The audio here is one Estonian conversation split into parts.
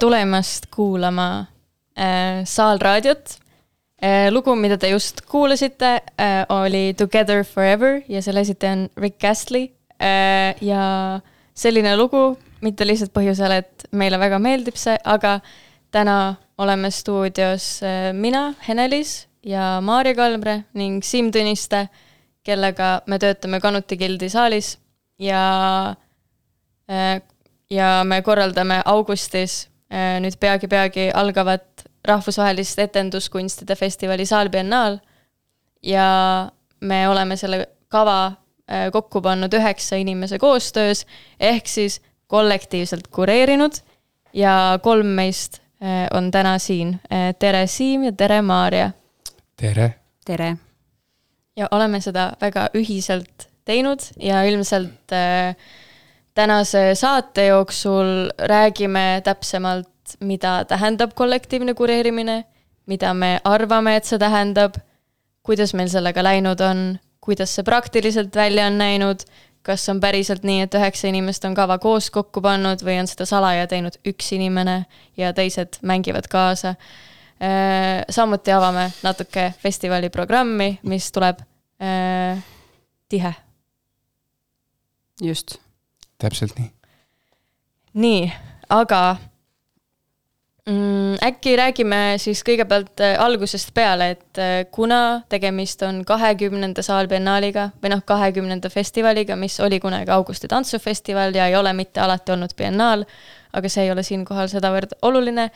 tulemast kuulama Saalraadiot. Lugu, mida te just kuulasite, oli Together Forever ja selle esitaja on Rick Astley. Ja selline lugu, mitte lihtsalt põhjusel, et meile väga meeldib see, aga täna oleme stuudios mina, Henelis ja Maarja Kalmre ning Siim Tõniste, kellega me töötame Kanuti Gildi saalis ja me korraldame augustis nüüd peagi algavat rahvusvahelist etenduskunstide festivali Saalbiennaal ja me oleme selle kava kokku pannud 9 inimese koostöös ehk siis kollektiivselt kureerinud ja 3 meist on täna siin. Tere Siim ja tere Maarja. Tere. Tere. Ja oleme seda väga ühiselt teinud ja ilmselt tänase saate jooksul räägime täpsemalt, mida tähendab kollektiivne kureerimine, mida me arvame, et see tähendab, kuidas meil sellega läinud on, kuidas see praktiliselt välja on näinud, kas on päriselt nii, et 9 inimest on kava koos kokku pannud või on seda salaja teinud 1 inimene ja teised mängivad kaasa. Samuti avame natuke festivali programmi, mis tuleb tihe. Just. Täpselt nii. Nii, aga äkki räägime siis kõigepealt algusest peale, et kuna tegemist on 20. Saalbiennaaliga või 20. festivaliga, mis oli kunagi Augusti tantsufestival ja ei ole mitte alati olnud biennaal, aga see ei ole siinkohal sedavõrd oluline,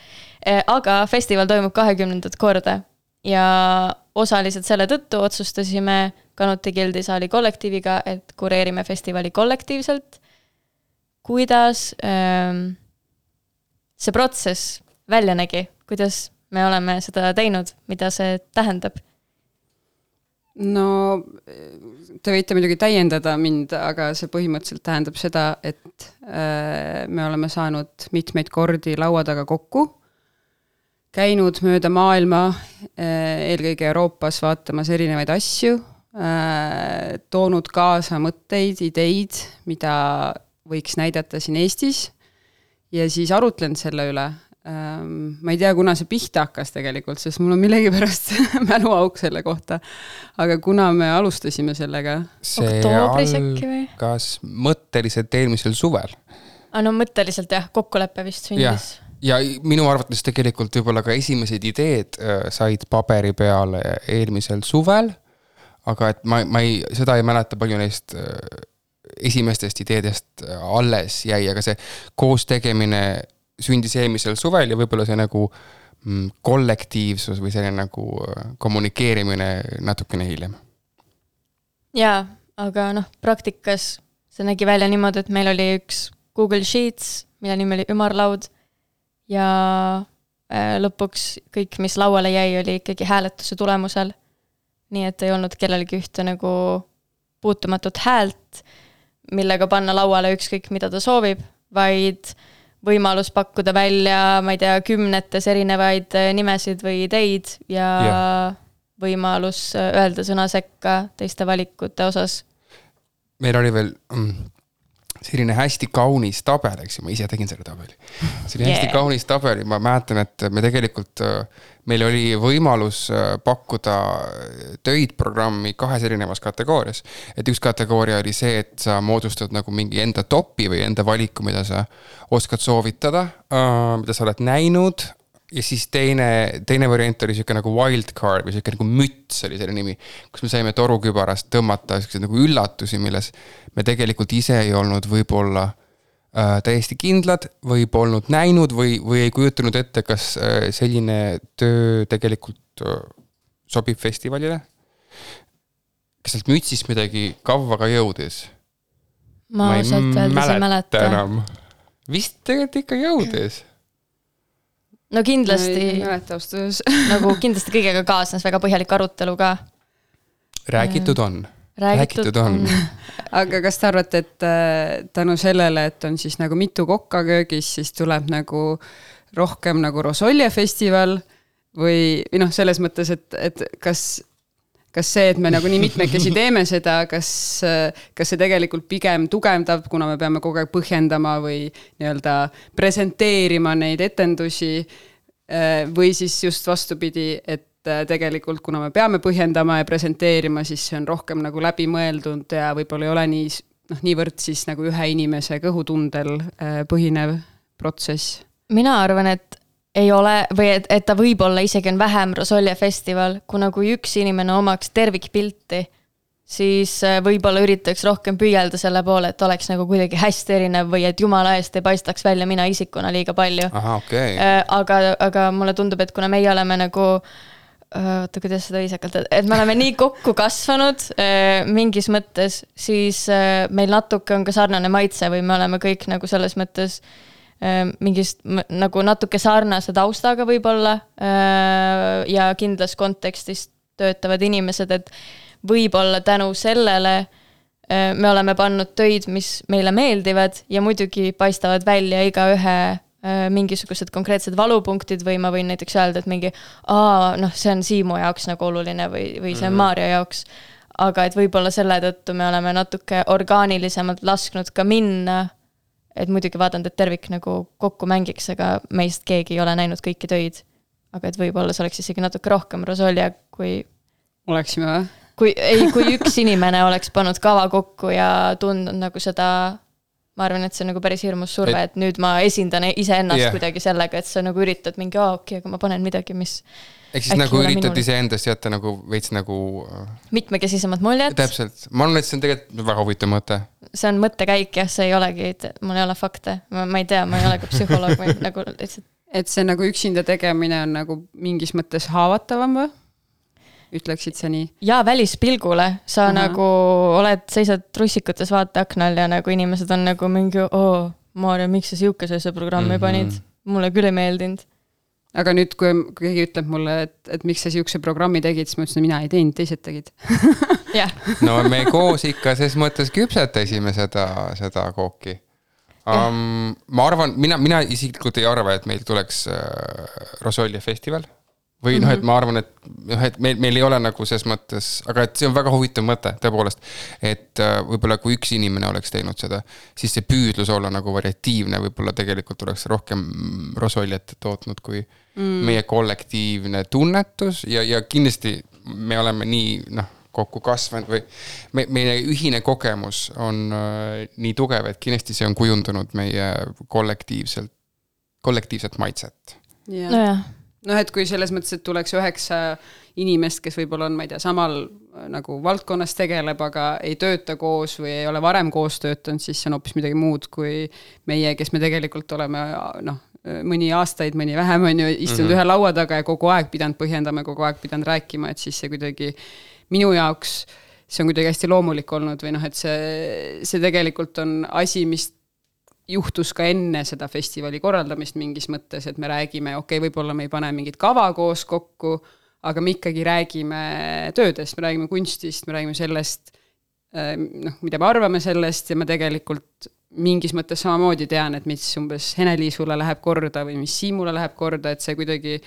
aga festival toimub 20. korda ja osaliselt selle tõttu otsustasime Kanuti Gildi saali kollektiiviga, et kureerime festivali kollektiivselt. Kuidas see protsess välja nägi, kuidas me oleme seda teinud, mida see tähendab? No, te võite muidugi täiendada mind, aga see põhimõtteliselt tähendab seda, et me oleme saanud mitmeid kordi laua taga kokku, käinud mööda maailma, eelkõige Euroopas vaatamas erinevaid asju, toonud kaasa mõtteid, ideid, mida võiks näidata siin Eestis ja siis arutlenud selle üle, ma ei tea, kuna see pihta hakkas tegelikult, sest mul on millegipärast mäluauk selle kohta. Aga kuna me alustasime sellega? See oktoobris äkki või? Algas mõtteliselt eelmisel suvel. No mõtteliselt jah, kokkuleppe vist sündis. Ja minu arvates tegelikult võib-olla ka esimesed ideed said paberi peale eelmisel suvel, aga et ma seda ei mäleta palju neist esimestest ideedest alles jäi, aga see koos tegemine sündis eelmisel suvel ja võib-olla see nagu kollektiivsus või selline nagu kommunikeerimine natukene hiljem. Jaa, aga praktikas see nägi välja niimoodi, et meil oli üks Google Sheets, mille nimi oli ümarlaud ja lõpuks kõik, mis lauale jäi, oli ikkagi hääletuse tulemusel. Nii et ei olnud kellelgi ühte nagu puutumatut häält, millega panna lauale ükskõik, mida ta soovib, vaid võimalus pakkuda välja, ma ei tea, 10 erinevaid nimesid või ideid ja võimalus öelda sõna sekka teiste valikute osas. Meil oli veel selline hästi kaunis tabel, eks ju, ma ise tegin selle tabeli. See oli hästi kaunis tabeli, ma mäletan, et me tegelikult, meil oli võimalus pakkuda töid programmi 2 erinevas kategoorias. Et üks kategooria oli see, et sa moodustad nagu mingi enda topi või enda valiku, mida sa oskad soovitada, mida sa oled näinud. Ja siis teine variant oli siuke nagu wildcard või siuke nagu müts oli selle nimi, kus me saime torukübarast tõmmata nagu üllatusi, milles me tegelikult ise ei olnud võib-olla täiesti kindlad või polnud näinud või ei kujutanud ette, kas selline töö tegelikult sobib festivalile. Kas sealt mütsist midagi kavva ka jõudis? Ma sealt öeldes ei mäleta. Enam. Vist tegelikult ikka jõudis. No kindlasti, ei mäleta austus. nagu kindlasti kõigega kaasnes väga põhjalik arutelu ka. Räägitud on. Räägitud on. Aga kas te arvate, et tänu sellele, et on siis nagu mitu kokka köögis, siis tuleb nagu rohkem nagu Rosolje festival või selles mõttes, et kas see, et me nagu nii mitmekesi teeme seda, kas see tegelikult pigem tugevdab, kuna me peame kogu aeg põhjendama või nii-öelda presenteerima neid etendusi või siis just vastupidi, et tegelikult, kuna me peame põhjendama ja presenteerima, siis see on rohkem nagu läbimõeldud ja võib-olla ei ole niivõrd siis nagu ühe inimese kõhutundel põhinev protsess. Mina arvan, et ei ole, või et ta võib-olla isegi on vähem Rosolje festival, kuna kui üks inimene omaks tervikpilti, siis võib-olla üritaks rohkem püüelda selle poole, et oleks nagu kuidagi hästi erinev või et jumala eest ei paistaks välja mina isikuna liiga palju. Aha, okay. Aga mulle tundub, et kuna meie oleme nagu kuidas seda viisakalt, et me oleme nii kokku kasvanud mingis mõttes, siis meil natuke on ka sarnane maitse või me oleme kõik nagu selles mõttes mingist nagu natuke sarnase taustaga võib-olla ja kindlas kontekstis töötavad inimesed, et võib-olla tänu sellele me oleme pannud töid, mis meile meeldivad ja muidugi paistavad välja iga ühe mingisugused konkreetsed valupunktid või ma võin näiteks öelda, et mingi see on Siimu jaoks nagu oluline või see on Maarja jaoks, aga et võib-olla selle tõttu me oleme natuke orgaanilisemalt lasknud ka minna, et muidugi vaadanud, et tervik nagu kokku mängiks, aga meist keegi ei ole näinud kõiki töid. Aga et võib-olla see oleks isegi natuke rohkem Rosolje, kui oleksime või? Kui üks inimene oleks pannud kava kokku ja tundnud nagu seda, ma arvan, et see on nagu päris hirmus surve, et nüüd ma esindan iseennast kuidagi sellega, et sa nagu üritad mingi, okei, aga ma panen midagi, mis ehk siis nagu üritad iseendast jätta nagu veits nagu mitmekesisemad muljed. Täpselt. Ma arvan, et see on tegelikult väga huvitav mõte. See on mõttekäik, jah, see ei olegi, mul ei ole fakte. Ma ei tea, ma ei ole ka psühholoog või nagu lihtsalt. Et see nagu üksinda tegemine on nagu mingis mõttes haavatavam või? Ütleksid sa nii? Jaa, välispilgule. Sa nagu seisad russikutes vaateaknal ja nagu inimesed on nagu mingi, Maarja, miks sa siukese programmi panid? Mulle küll ei meeldinud. Aga nüüd, kui keegi ütleb mulle, et miks sa siukse programmi tegid, siis ma ütlesin, mina ei teinud, teised tegid. No me koos ikka ses mõttes küpsetasime seda kooki. Ma arvan, mina isiklikult ei arva, et meil tuleks Rosolje festival. või noh, et ma arvan, et meil ei ole nagu ses mõttes, aga et see on väga huvitav mõte tõepoolest, et võib-olla kui üks inimene oleks teinud seda, siis see püüdlus olla nagu variatiivne, võib-olla tegelikult oleks rohkem rosoljet tootnud kui meie kollektiivne tunnetus ja kindlasti me oleme nii kokku kasvanud või meie ühine kogemus on nii tugev, et kindlasti see on kujundunud meie kollektiivset maitset. Nojah. Et kui selles mõttes, et tuleks 9 inimest, kes võib-olla on, ma ei tea, samal nagu valdkonnas tegeleb, aga ei tööta koos või ei ole varem koos töötanud, siis see on hoopis midagi muud kui meie, kes me tegelikult oleme mõni aastaid, mõni vähem on ju istunud ühe laua taga ja kogu aeg pidanud põhjendama, kogu aeg pidanud rääkima, et siis see kuidagi minu jaoks, see on kuidagi hästi loomulik olnud või et see tegelikult on asi, mis juhtus ka enne seda festivali korraldamist mingis mõttes, et me räägime, võib-olla me ei pane mingit kava koos kokku, aga me ikkagi räägime töödest, me räägime kunstist, me räägime sellest, mida me arvame sellest ja ma tegelikult mingis mõttes samamoodi tean, et mis umbes Hene-Liisule läheb korda või mis Siimule läheb korda, et see kuidagi,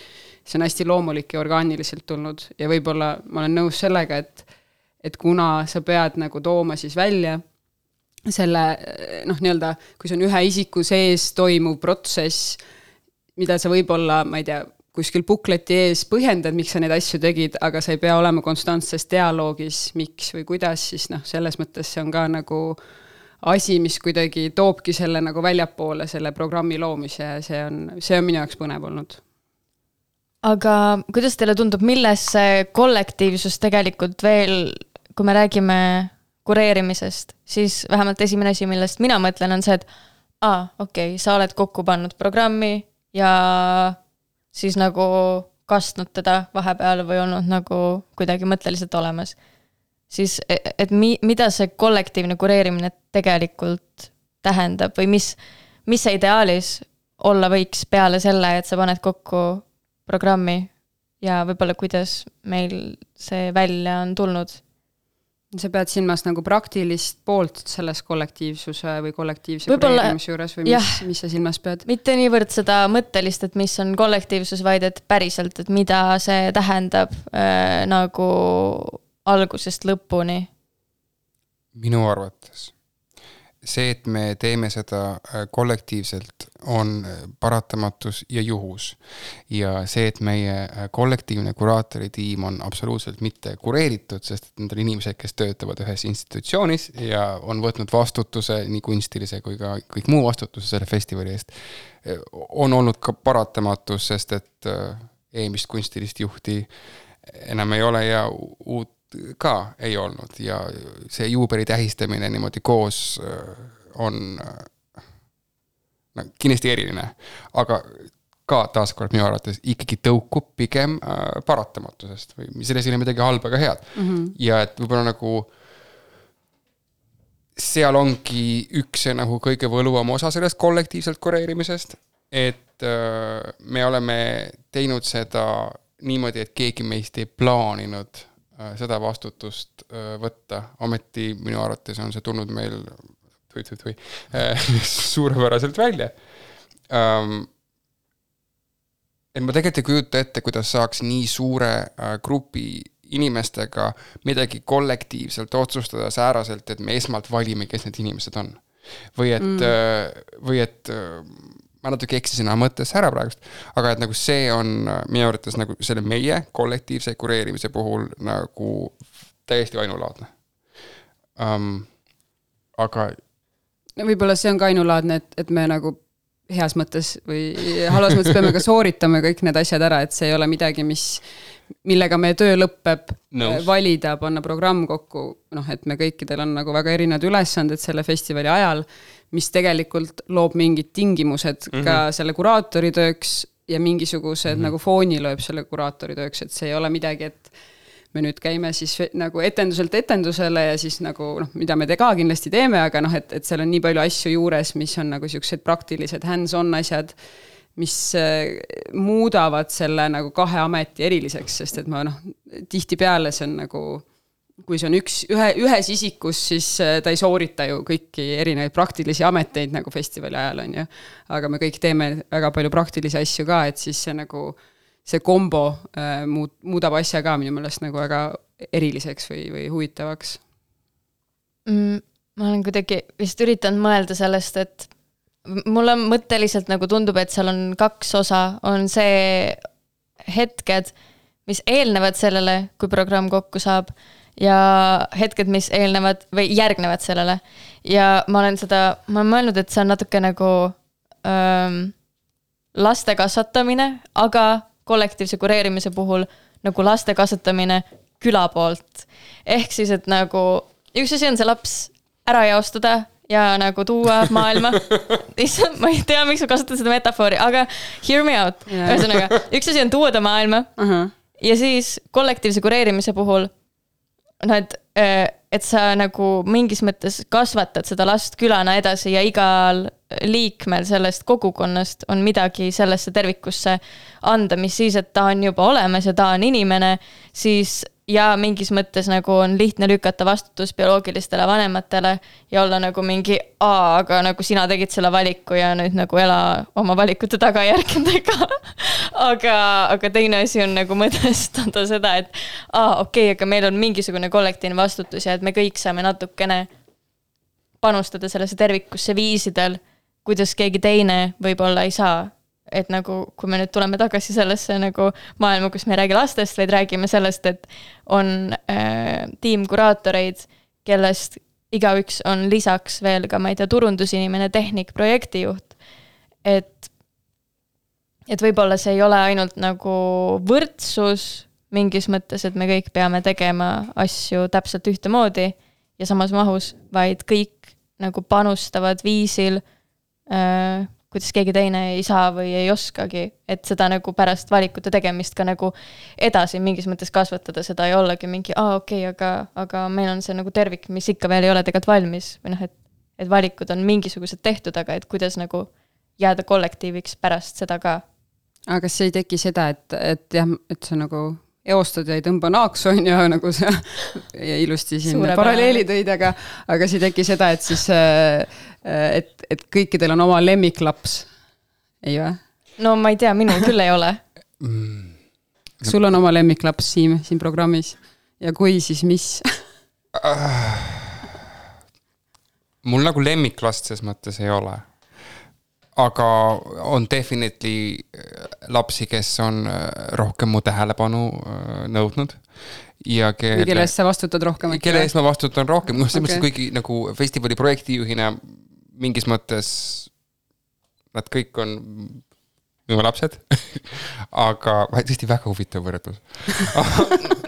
see on hästi loomulik ja orgaaniliselt tulnud ja võib-olla ma olen nõus sellega, et kuna sa pead nagu tooma siis välja selle, nii-öelda, kui see on ühe isiku sees toimuv protsess, mida sa võib-olla, ma ei tea, kuskil bukleti ees põhjendad, miks sa neid asju tegid, aga sa ei pea olema konstantses dialoogis, miks või kuidas, siis selles mõttes see on ka nagu asi, mis kuidagi toobki selle nagu väljapoole selle programmi loomise ja see on minu jaoks põnev olnud. Aga kuidas teile tundub, milles see kollektiivsus tegelikult veel, kui me räägime kureerimisest, siis vähemalt esimene asi, millest mina mõtlen, on see, et sa oled kokku pannud programmi ja siis nagu kastnud teda vahepeal või olnud nagu kuidagi mõtteliselt olemas. Siis, et mida see kollektiivne kureerimine tegelikult tähendab või mis see ideaalis olla võiks peale selle, et sa paned kokku programmi ja võib-olla kuidas meil see välja on tulnud? Sa pead silmas nagu praktilist poolt selles kollektiivsuse või kollektiivse kureerimise juures või mis sa silmas pead? Mitte niivõrd seda mõttelist, et mis on kollektiivsus, vaid et päriselt, et mida see tähendab nagu algusest lõpuni. Minu arvates see, et me teeme seda kollektiivselt, on paratamatus ja juhus. Ja see, et meie kollektiivne kuraatoritiim on absoluutselt mitte kureeritud, sest need on inimesed, kes töötavad ühes institutsioonis ja on võtnud vastutuse, nii kunstilise kui ka kõik muu vastutuse selle festivali eest, on olnud ka paratamatus, sest et eelmist kunstilist juhti enam ei ole ja uut ka ei olnud ja see juubeli tähistamine niimoodi koos on kindlasti eriline, aga ka taaskord minu arvates ikkagi tõukub pigem paratamatusest või selles ei ole midagi halba ega head. Ja et võib-olla nagu seal ongi üks nagu kõige võluvam osa sellest kollektiivselt kureerimisest, et me oleme teinud seda niimoodi, et keegi meist ei plaaninud seda vastutust võtta. Ometi minu arvates on see tulnud meil suurepäraselt välja. Et ma tegelikult ei kujuta ette, kuidas saaks nii suure grupi inimestega midagi kollektiivselt otsustada sääraselt, et me esmalt valime, kes need inimesed on. Või et ma natuke eksisin mõttes ära praegust, aga et nagu see on minu arvates nagu selle meie kollektiivse kureerimise puhul nagu täiesti ainulaadne. Aga võib-olla see on ka ainulaadne, et me nagu heas mõttes või halvas mõttes peame ka sooritama kõik need asjad ära, et see ei ole midagi, millega meie töö lõpeb, valida, panna programm kokku, et me kõikidel on nagu väga erinevad ülesanded selle festivali ajal, mis tegelikult loob mingid tingimused ka selle kuraatori tööks ja mingisugused nagu fooni lööb selle kuraatori tööks, et see ei ole midagi, et me nüüd käime siis nagu etenduselt etendusele ja siis nagu, mida me ka kindlasti teeme, aga et seal on nii palju asju juures, mis on nagu sellised praktilised hands-on asjad, mis muudavad selle nagu kahe ameti eriliseks, sest et ma tihti peale see on nagu, kui see on ühes isikus, siis ta ei soorita ju kõiki erinevaid praktilisi ameteid nagu festivali ajal on ju, aga me kõik teeme väga palju praktilisi asju ka, et siis see nagu see kombo muudab asja ka minu meelest nagu väga eriliseks või huvitavaks. Ma olen kuidagi vist üritanud mõelda sellest, et mulle mõtteliselt nagu tundub, et seal on 2 osa, on see hetked, mis eelnevad sellele, kui programm kokku saab ja hetked, mis eelnevad või järgnevad sellele. Ja ma olen mõelnud, et see on natuke nagu laste kasvatamine, aga kollektiivse kureerimise puhul nagu laste kasvatamine küla poolt. Ehk siis, et nagu üks asi on see laps ära jaostada ja nagu tuua maailma. Ma ei tea, miks ma kasutan seda metafoori, aga hear me out. Ühesõnaga, üks asi on tuua ta maailma ja siis kollektiivse kureerimise puhul et sa nagu mingis mõttes kasvatad seda last külana edasi ja igal liikmel sellest kogukonnast on midagi sellesse tervikusse anda, mis siis, et ta on juba olemas ja ta on inimene, siis ja mingis mõttes nagu on lihtne lükata vastutus bioloogilistele vanematele ja olla nagu mingi, aga nagu sina tegid selle valiku ja nüüd nagu ela oma valikute tagajärgedega. aga teine asi on nagu mõtestada seda, et okei, aga meil on mingisugune kollektiivne vastutus ja et me kõik saame natukene panustada sellesse tervikusse viisidel, kuidas keegi teine võib-olla ei saa. Et nagu, kui me nüüd tuleme tagasi sellesse nagu maailma, kus me ei räägi lastest, vaid räägime sellest, et on tiimkuraatoreid, kellest igaüks on lisaks veel ka, ma ei tea, turundusinimene, tehnik, projektijuht. Et võib-olla see ei ole ainult nagu võrdsus mingis mõttes, et me kõik peame tegema asju täpselt ühtemoodi ja samas mahus, vaid kõik nagu panustavad viisil kuidas keegi teine ei saa või ei oskagi, et seda nagu pärast valikute tegemist ka nagu edasi mingis mõttes kasvatada, seda ei ollagi mingi, okei, aga meil on see nagu tervik, mis ikka veel ei ole tegelikult valmis, või noh, et valikud on mingisugused tehtud, aga et kuidas nagu jääda kollektiiviks pärast seda ka. Aga kas ei teki seda, et jah, et sa nagu eostad ja ei tõmba naaksu, on ju, nagu sa ja ilusti siin paralleeli tõid, aga see ei teki seda, et siis et kõikidel on oma lemmiklaps, ei või? No ma ei tea, minul küll ei ole. Sul on oma lemmiklaps siin programmis ja kui, siis mis? Mul nagu lemmiklast ses mõttes ei ole. Aga on definitely lapsi, kes on rohkem mu tähelepanu nõudnud. Ja kelle eest sa vastutad rohkem? Kelle eest ma vastutan rohkem. Kuigi nagu festivali projektijuhina mingis mõttes nad kõik on minu lapsed. Aga tõesti väga huvitav võrdlus.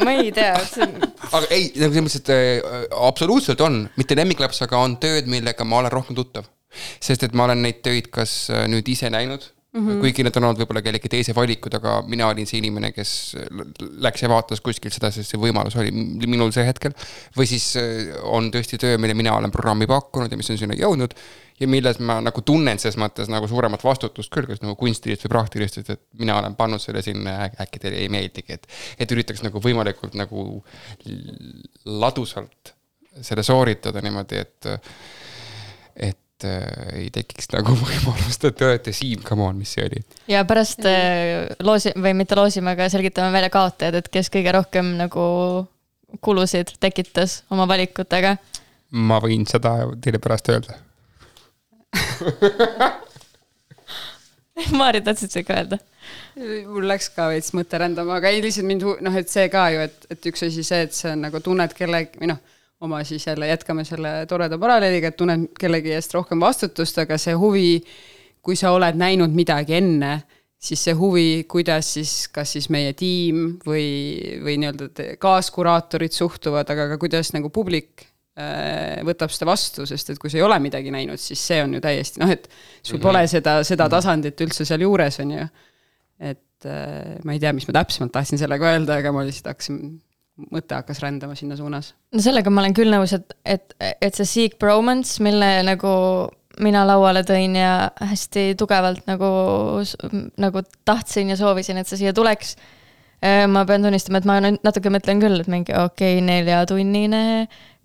Ma ei tea. Aga ei, nagu selles mõttes, et absoluutselt on. Mitte lemmiklaps, aga on tööd, millega ma olen rohkem tuttav. Sest et ma olen neid töid kas nüüd ise näinud, kuigi need on olnud võib-olla kellegi teise valikud, aga mina olin see inimene, kes läks ja vaatas kuskilt seda, sest see võimalus oli minul see hetkel. Või siis on tõesti töö, mille mina olen programmi pakkunud ja mis on sinna jõudnud ja milles ma nagu tunnen ses mõttes nagu suuremat vastutust küll, kas nagu kunstilist või praktilist, et mina olen pannud selle sinna, äkki teile ei meeldigi, et üritaks nagu võimalikult nagu ladusalt selle sooritada niimoodi, et ei tekiks nagu võimalust, et te olete Siim, come on, mis see oli. Ja pärast või mitte loosime, aga selgitame välja kaotajad, et kes kõige rohkem nagu kulusid tekitas oma valikutega. Ma võin seda teile pärast öelda. Maari, tahtsid see ka öelda? Mul läks ka veits mõte rändama, aga ei lihtsalt mind, et see ka ju, et üks asi see, et see on nagu tunned kellegi, või oma siis jälle jätkame selle toreda paralleeliga, et tunned kellegi eest rohkem vastutust, aga see huvi, kui sa oled näinud midagi enne, siis see huvi, kuidas siis, kas siis meie tiim või nii-öelda kaaskuraatorid suhtuvad, aga ka kuidas nagu publik võtab seda vastu, sest et kui sa ei ole midagi näinud, siis see on ju täiesti, et sul pole seda tasandit üldse seal juures, on ju. Et ma ei tea, mis ma täpsemalt tahtsin sellega öelda, aga ma lihtsalt mõte hakkas rändama sinna suunas. No sellega ma olen küll nõus, et see Seek Bromance, mille nagu mina lauale tõin ja hästi tugevalt nagu tahtsin ja soovisin, et see siia tuleks. Ma pean tunnistama, et ma natuke mõtlen küll, et mingi 4-tunnine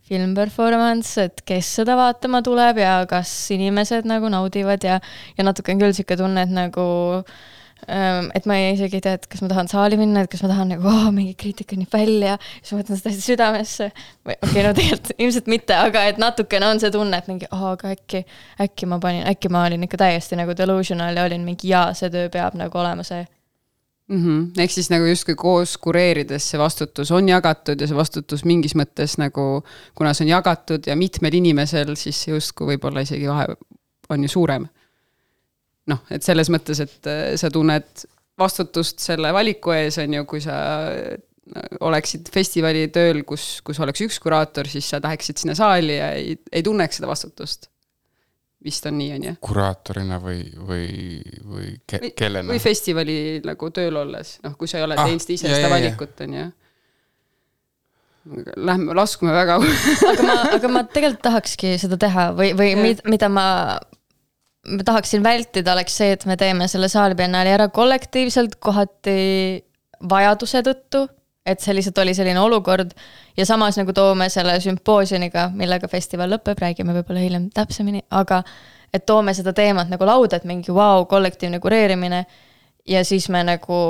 filmperformance, et kes seda vaatama tuleb ja kas inimesed nagu naudivad ja natuke on küll siuke tunne, et nagu et ma isegi ei tea, et kas ma tahan saali minna, et kas ma tahan nagu mingi kriitika nii välja, siis ma võtan seda hästi südamesse. Okei, no tegelikult ilmselt mitte, aga et natukene on see tunne, et mingi, aga äkki ma olin ikka täiesti nagu delusional ja olin mingi see töö peab nagu olema see. Ehk siis nagu justkui koos kureerides see vastutus on jagatud ja see vastutus mingis mõttes nagu, kuna see on jagatud ja mitmel inimesel, siis justkui võib-olla isegi vahe on ju suurem. Noh, et selles mõttes, et sa tunned vastutust selle valiku ees on ju, kui sa oleksid festivali tööl, kus oleks üks kuraator, siis sa tahaksid sinna saali ja ei tunneks seda vastutust. Vist on nii, on ju? Kuraatorina või kellena? Või festivali nagu tööl olles, kui sa ei ole teinud ise seda valikut, on ju. Laskume väga. aga ma tegelikult tahakski seda teha või mida ma tahaksin vältida, oleks see, et me teeme selle saalibiennaali ära kollektiivselt kohati vajaduse tõttu, et see lihtsalt oli selline olukord ja samas nagu toome selle sümpoosioniga, millega festival lõpeb, räägime võib-olla hiljem täpsemini, aga et toome seda teemat nagu lauda, et mingi kollektiivne kureerimine ja siis me nagu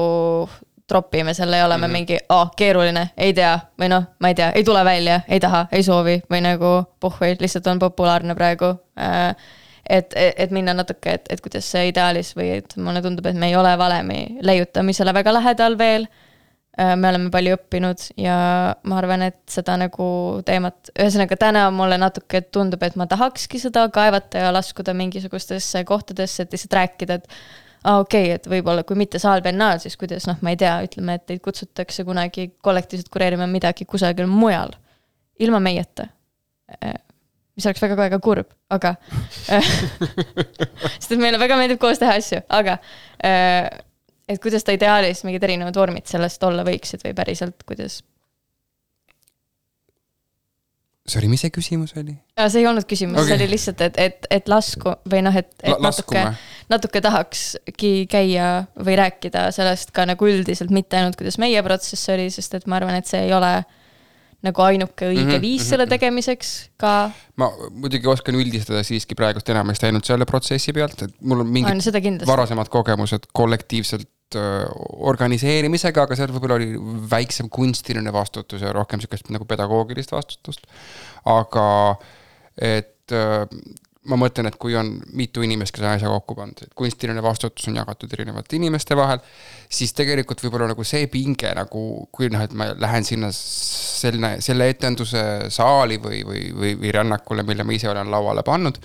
tropime selle ja oleme mingi keeruline, ei tea, või ma ei tea, ei tule välja, ei taha, ei soovi või nagu puhvi, lihtsalt on populaarne praegu. Et minna natuke, et kuidas see ideaalis või et mulle tundub, et me ei ole valemi leiutamisele väga lähedal veel. Me oleme palju õppinud ja ma arvan, et seda nagu teemat, ühesõnaga täna mulle natuke tundub, et ma tahakski seda kaevata ja laskuda mingisugustesse kohtadesse, et lihtsalt rääkida, et okei, et võib-olla kui mitte saalibiennaal, siis kuidas, ma ei tea, ütleme, et teid kutsutakse kunagi kollektiivselt kureerima midagi kusagil mujal, ilma meieta. Mis oleks väga kurb, aga sest et meile väga meeldib koos teha asju, aga et kuidas ta ideaalis mingid erinevad vormid sellest olla võiksid või päriselt, kuidas? Sorry, mis see küsimus oli? See ei olnud küsimus, okay. See oli lihtsalt, et lasku või et natuke tahakski käia või rääkida sellest ka nagu üldiselt, mitte ainult kuidas meie protsess oli, sest et ma arvan, et see ei ole nagu ainuke õige viis selle tegemiseks ka. Ma muidugi oskan üldistada siiski praegust enamasti ainult selle protsessi pealt, et mul on mingid varasemad kogemused kollektiivselt organiseerimisega, aga seal võib-olla oli väiksem kunstiline vastutus ja rohkem sellist nagu pedagoogilist vastutust. Aga et ma mõtlen, et kui on mitu inimest, kes on asja kokku pandud, et kunstiline vastutus on jagatud erinevate inimeste vahel, siis tegelikult võib-olla nagu see pinge, nagu kui et ma lähen sinna selle etenduse saali või rännakule, mille ma ise olen lauale pannud,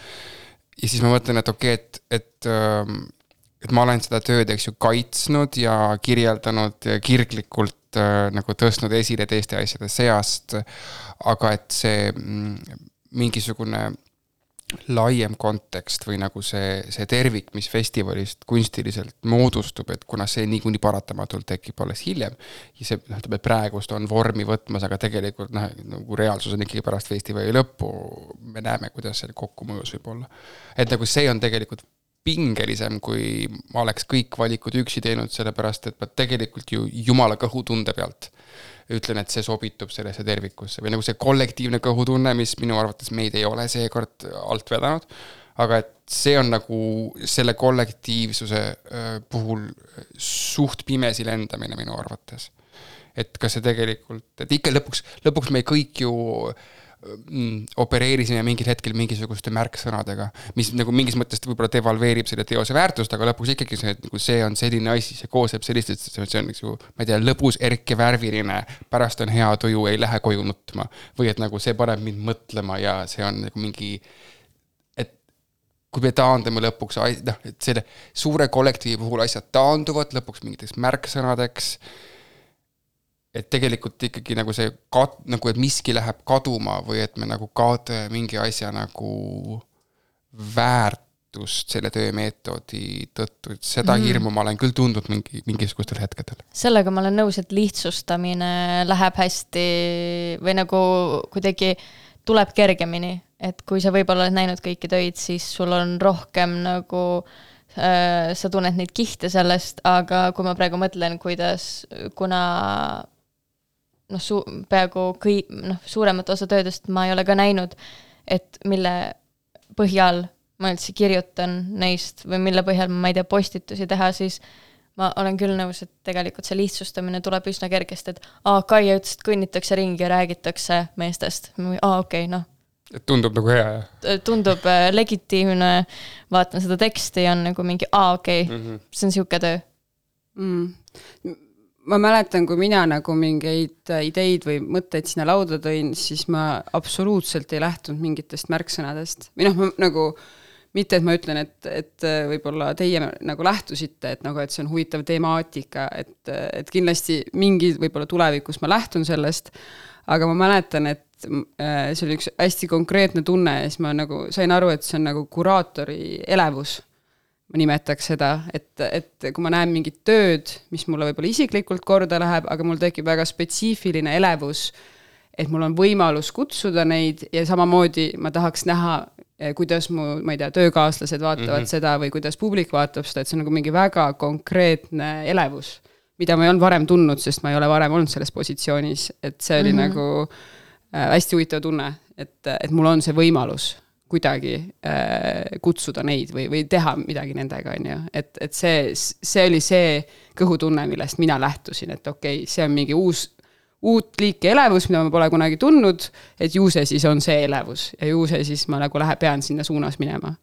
ja siis ma mõtlen, et okei, et ma olen seda tööd, eks ju, kaitsnud ja kirjeldanud ja kirglikult nagu tõstnud esile teiste asjade seast, aga et see mingisugune laiem kontekst või nagu see tervik, mis festivalist kunstiliselt moodustub, et kuna see niikuinii paratamatult tekib alles hiljem ja see praegust on vormi võtmas, aga tegelikult nagu reaalsus on ikkagi pärast festivali lõppu, me näeme, kuidas see kokkumõjus võib olla. Et nagu see on tegelikult pingelisem, kui ma oleks kõik valikud üksi teinud, sellepärast, et ma tegelikult ju jumala kõhutunde pealt ütlen, et see sobitub sellesse tervikusse või nagu see kollektiivne kõhutunne, mis minu arvates meid ei ole seekord alt vedanud, aga et see on nagu selle kollektiivsuse puhul suht pimesi lendamine minu arvates. Et kas see tegelikult, et ikka lõpuks me kõik ju opereerisime mingil hetkel mingisuguste märksõnadega, mis nagu mingis mõttes võib-olla devalveerib selle teose väärtust, aga lõpuks ikkagi see on selline asi, see kooseb sellist, see on ma ei tea, lõbus erke värviline, pärast on hea tuju, ei lähe koju nutma või et nagu see paneb mind mõtlema ja see on nagu mingi, et kui me taandame lõpuks, et selle suure kollektiivi puhul asjad taanduvad lõpuks mingiteks märksõnadeks, et tegelikult ikkagi nagu see nagu, et miski läheb kaduma või et me nagu kaotame mingi asja nagu väärtust selle töömeetodi tõttu, et seda hirmu ma olen küll tundnud mingisugustel hetkedel. Sellega ma olen nõus, et lihtsustamine läheb hästi või nagu kuidagi tuleb kergemini, et kui sa võib-olla oled näinud kõiki töid, siis sul on rohkem nagu sa tunned neid kihte sellest, aga kui ma praegu mõtlen, kuna peaaegu suuremat osa töödest ma ei ole ka näinud, et mille põhjal ma üldse kirjutan neist või mille põhjal ma ei tea postitusi teha, siis ma olen küll nõus, et tegelikult see lihtsustamine tuleb üsna kergesti, et Kaia ütles, et kõnnitakse ringi ja räägitakse meestest. Okei, noh. Et tundub nagu hea, jah? Tundub legitiimne, vaatan seda teksti ja on nagu mingi, okei, see on siuke töö. Ma mäletan, kui mina nagu mingeid ideid või mõtteid sinna lauda tõin, siis ma absoluutselt ei lähtunud mingitest märksõnadest. Või noh, nagu mitte, et ma ütlen, et võib-olla teie nagu lähtusite, et see on huvitav temaatika, et kindlasti mingi võib-olla tulevikus ma lähtun sellest, aga ma mäletan, et see oli üks hästi konkreetne tunne ja siis ma nagu sain aru, et see on nagu kuraatori elevus. Ma nimetaks seda, et kui ma näen mingit tööd, mis mulle võib-olla isiklikult korda läheb, aga mul tekib väga spetsiifiline elevus, et mul on võimalus kutsuda neid ja samamoodi ma tahaks näha, kuidas ma ei tea, töökaaslased vaatavad seda või kuidas publik vaatab seda, et see on nagu mingi väga konkreetne elevus, mida ma ei olnud varem tundnud, sest ma ei ole varem olnud selles positsioonis, et see oli nagu hästi huvitav tunne, et mul on see võimalus kuidagi kutsuda neid või teha midagi nendega, on ju. Et see oli see kõhutunne, millest mina lähtusin, et okei, see on mingi uut liiki elevus, mida ma pole kunagi tundnud, et ju see siis on see elevus ja ju see siis ma nagu pean sinna suunas minema.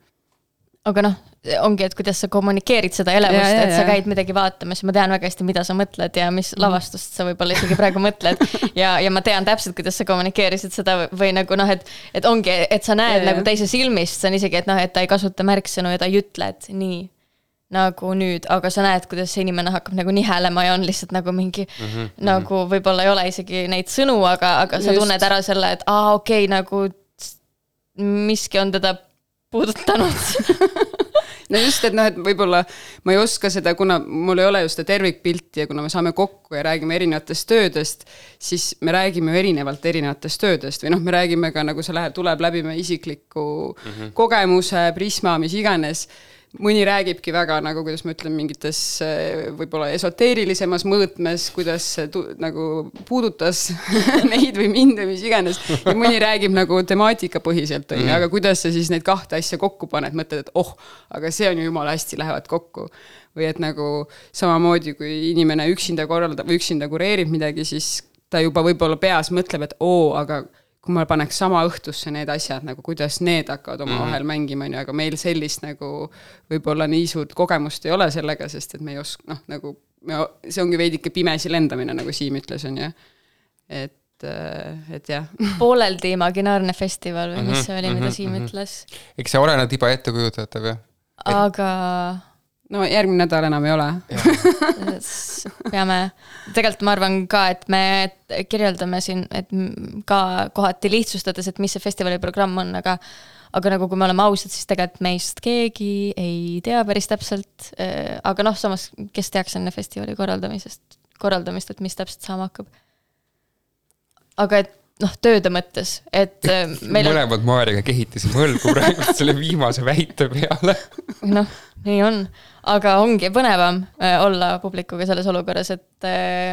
Aga noh, ongi, et kuidas sa kommunikeerid seda elevust, et sa käid midagi vaatamas ja ma tean väga hästi, mida sa mõtled ja mis lavastust sa võib-olla isegi praegu mõtled ja ma tean täpselt, kuidas sa kommunikeerisid seda või nagu noh, et ongi, et sa näed nagu teise silmist, see on isegi, et noh, et ta ei kasuta märksõnu ja ta ei ütle, et nii nagu nüüd, aga sa näed, kuidas see inimene hakkab nagu nihelema ja on lihtsalt nagu mingi nagu võib-olla ei ole isegi neid sõnu, aga sa tunned ära selle, et okei, nagu miski on teda puudutanud. No just, et et võib-olla ma ei oska seda, kuna mul ei ole just seda tervikpilti ja kuna me saame kokku ja räägime erinevatest töödest, siis me räägime erinevalt erinevatest töödest või me räägime ka, nagu see tuleb läbi me isikliku kogemuse, prisma, mis iganes. Mõni räägibki väga, nagu kuidas ma ütlen, mingites võib-olla esoteerilisemas mõõtmes, kuidas nagu puudutas neid või mind või mis iganes. Ja mõni räägib nagu temaatika põhiselt, aga kuidas sa siis neid kahte asja kokku paned, mõtled, et aga see on ju jumala hästi lähevad kokku. Või et nagu samamoodi, kui inimene üksinda korraldab või üksinda kureerib midagi, siis ta juba võib-olla peas mõtleb, et aga kui ma paneks sama õhtusse need asjad, nagu kuidas need hakkavad oma vahel mängima, aga meil sellist nagu võib-olla nii suurt kogemust ei ole sellega, sest et me ei oska, nagu see ongi veidike pimesi lendamine, nagu Siim ütles, on ju. Et jah. Pooleldi imaginaarne festival või mis see oli, mida Siim ütles? Eks see oleneb iba ettekujutatav, jah? Aga... No järgmine nädal enam ei ole. Peame, tegelikult ma arvan ka, et me kirjeldame siin, et ka kohati lihtsustades, et mis see festivali programm on, aga nagu kui me oleme ausad, siis tegelikult meist keegi ei tea päris täpselt, aga samas, kes teaks enne festivali korraldamist, et mis täpselt saama hakkab. Aga et tööde mõttes, et meil on... Mõlemad Maariga kehitasime õlgu praegu selle viimase väite peale. Nii on. Aga ongi põnevam olla publikuga selles olukorras, et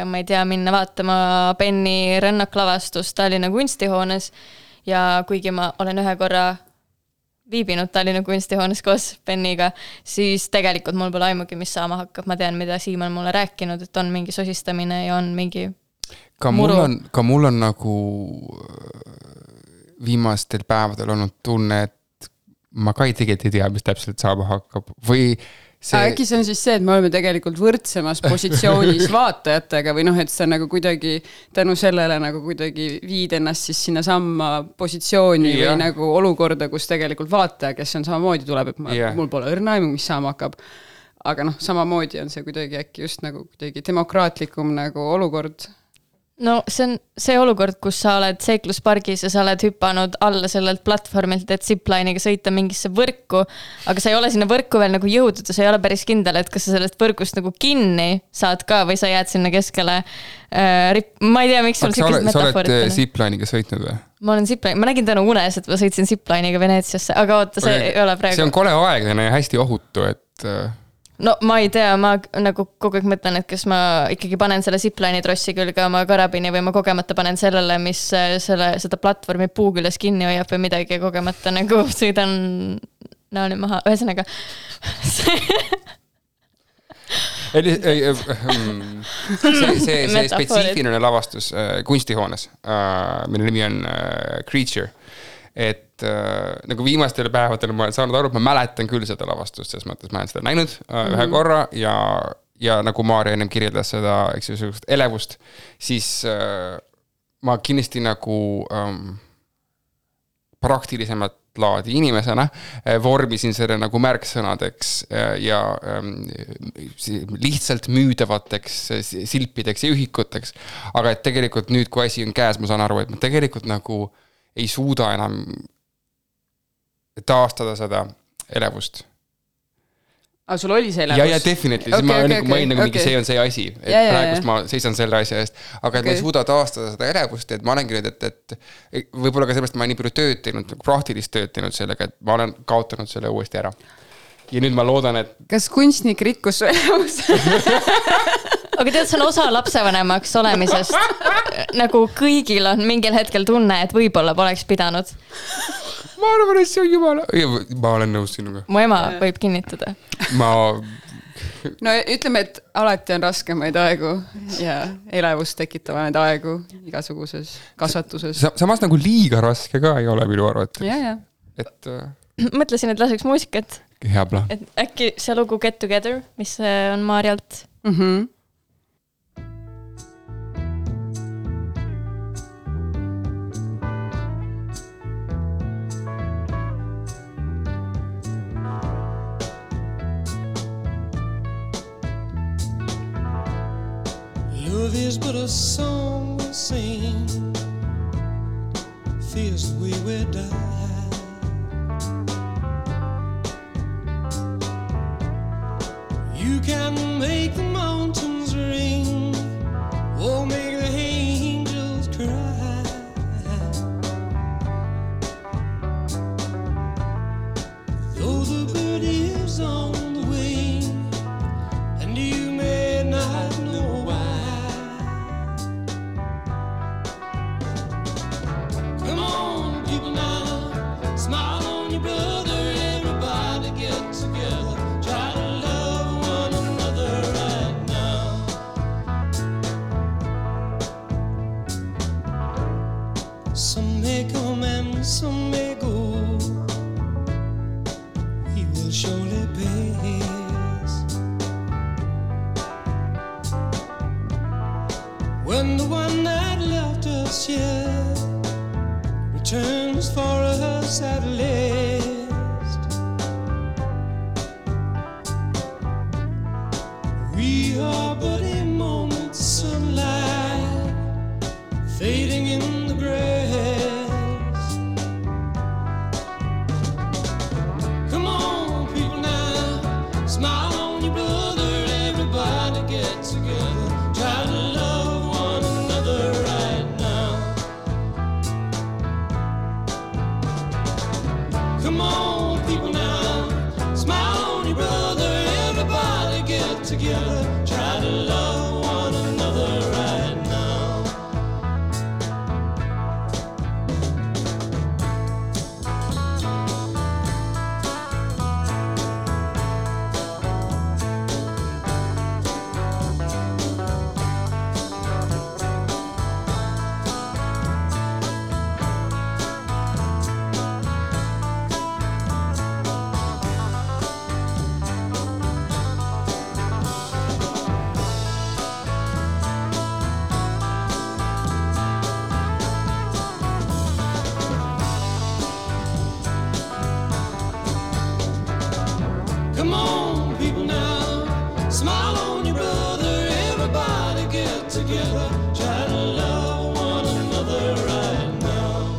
ma ei tea, minna vaatama Benni rännaklaavastust Tallinna kunstihoones ja kuigi ma olen ühe korra viibinud Tallinna kunstihoones koos Benniga, siis tegelikult mul pole aimugi, mis saama hakkab. Ma tean, mida Siim on mulle rääkinud, et on mingi sosistamine ja on mingi Ka mul on nagu viimastel päevadel olnud tunne, et ma ka tegelikult ei tea, mis täpselt saama hakkab. Või see... Äkki see on siis see, et me oleme tegelikult võrdsemas positsioonis vaatajatega või et see on nagu kuidagi tänu sellele nagu kuidagi viid ennast siis sinna samma positsiooni või nagu olukorda, kus tegelikult vaataja, kes on samamoodi tuleb, et mul pole õrna aimu, mis saama hakkab. Aga samamoodi on see kuidagi äkki just nagu kuidagi demokraatlikum nagu olukord. No see on see olukord, kus sa oled seikluspargis ja sa oled hüpanud alla sellelt platvormilt, et zipline'iga sõita mingisse võrku, aga sa ei ole sinna võrku veel nagu jõudnud ja sa ei ole päris kindel, et kas sa sellest võrgust nagu kinni saad ka või sa jääd sinna keskele. Ma ei tea, miks sul sellised metaforid. Sa oled zipline'iga sõitnud või? Ma nägin täna unes, et ma sõitsin zipline'iga Veneetsiasse, aga oota, see ei ole praegu. See on kole aeglane ja hästi ohutu, et... No ma ei tea, ma nagu kogu aeg mõtlen, et kas ma ikkagi panen selle zipline'i trossi külge oma karabini või ma kogemata panen sellele, mis seda platvormi puu küljes kinni hoiab või midagi ja kogemata nagu sõidan naani maha. Ühesõnaga see spetsiifiline lavastus kunstihoones, mille nimi on Creature. Et nagu viimastel päevadel ma olen saanud aru, et ma mäletan küll seda lavastust, selles mõttes ma olen seda näinud ühe korra ja nagu Maarja ennem kirjeldas seda elevust, siis ma kindlasti nagu praktilisemat laadi inimesena vormisin selle nagu märksõnadeks ja lihtsalt müüdavateks silpideks ja ühikuteks. Aga et tegelikult nüüd, kui asi on käes, ma saan aru, et ma tegelikult nagu ei suuda enam taastada seda elevust. Aga sul oli see elevus? Ja definitely. Okay, ma olin nagu mingi, see on see asi. Et praegust ma seisan selle asja eest. Aga et ma ei suuda taastada seda elevust, et ma olengi nüüd, et võib-olla ka sellest ma olen nii palju tööd teinud, praktilist tööd teinud sellega, et ma olen kaotanud selle uuesti ära. Ja nüüd ma loodan, et... Kas kunstnik rikkus su elevus? Aga tead, see on osa lapsevanemaks olemisest. Nagu kõigil on mingil hetkel tunne, et võib-olla poleks pidanud. Ma arvan, et see on jumala... Ma olen nõus sinuga. Mu ema võib kinnitada. No ütleme, et alati on raskemaid aegu ja elevust tekitavaid aegu igasuguses kasvatuses. Samas nagu liiga raske ka ei ole minu arvates. Ja. Et... Mõtlesin, et laseks muusikat. Hea plaan. Et äkki see lugu Get Together, mis on Maarjalt. Love is but a song we sing, fears the way we die. You can make the mountains ring, or make the angels cry. Though the bird is on the wing, and you may not know why. Come on, people now, smile on your brother, everybody get together, try to love one another right now. Some may come and some may go, we will surely pass. When the one that left us here returns for us at last, we are but a moment's sunlight fading in the grass. Come on, people now, smile on your brother, everybody get together, try to love one another right now. Come on, people now, smile on your brother, everybody get together, try to love one another right now. Come on, people now, smile on your brother, everybody get together, try to love one another right now.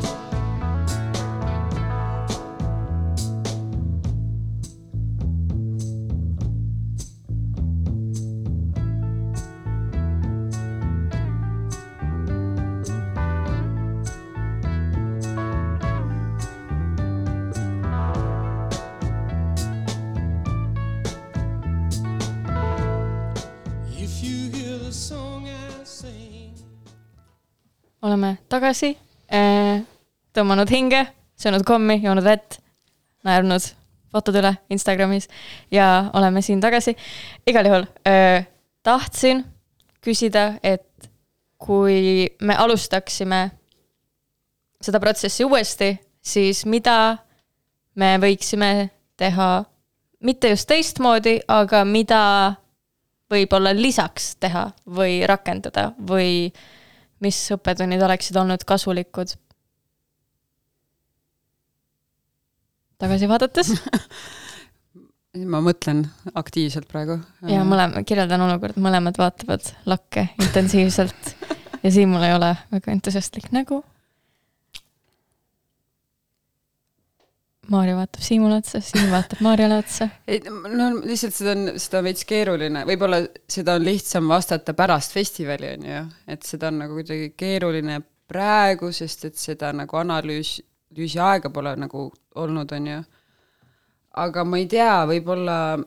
If you hear the song I sing. Oleme tagasi, tõmmanud hinge, söönud kommi, joonud vett, naernud fotod üle Instagramis ja oleme siin tagasi. Igal juhul tahtsin küsida, et kui me alustaksime seda protsessi uuesti, siis mida me võiksime teha, mitte just teistmoodi, aga mida võib-olla lisaks teha või rakendada või mis õppetunnid oleksid olnud kasulikud? Tagasi vaadates? Ma mõtlen aktiivselt praegu. Ja kirjeldan olukord, mõlemad vaatavad lakke intensiivselt ja siin mul ei ole väga entusiastlik nägu. Maarja vaatab Siimule otsa, Siim vaatab Maarjale otsa. No lihtsalt seda on veits keeruline. Võib-olla seda on lihtsam vastata pärast festivali, on ju. Et seda on nagu kuidagi keeruline praegu, sest et seda nagu analüüsi aega pole nagu olnud, on ju. Aga ma ei tea, võib-olla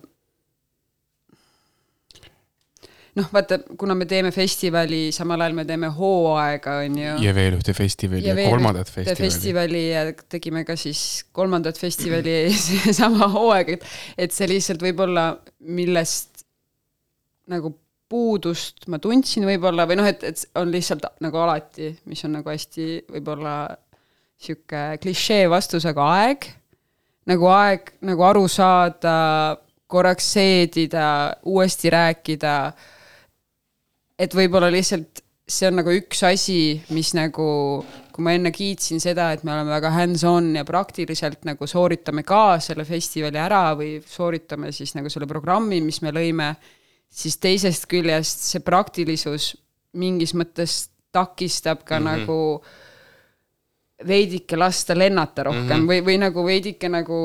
vaata, kuna me teeme festivali, samal ajal me teeme hooaega, on ju. Ja veel ühte festivali ja kolmandat festivali ja tegime ka siis kolmandat festivali sama hooaega, et see lihtsalt võib-olla millest nagu puudust ma tundsin võib-olla või et on lihtsalt nagu alati, mis on nagu hästi võib-olla siuke klišee vastus, aga aeg, nagu aru saada, korraks seedida, uuesti rääkida, et võib-olla lihtsalt see on nagu üks asi, mis nagu, kui ma enne kiitsin seda, et me oleme väga hands-on ja praktiliselt nagu sooritame ka selle festivali ära või sooritame siis nagu selle programmi, mis me lõime, siis teisest küljest see praktilisus mingis mõttes takistab ka nagu veidike lasta lennata rohkem või nagu veidike nagu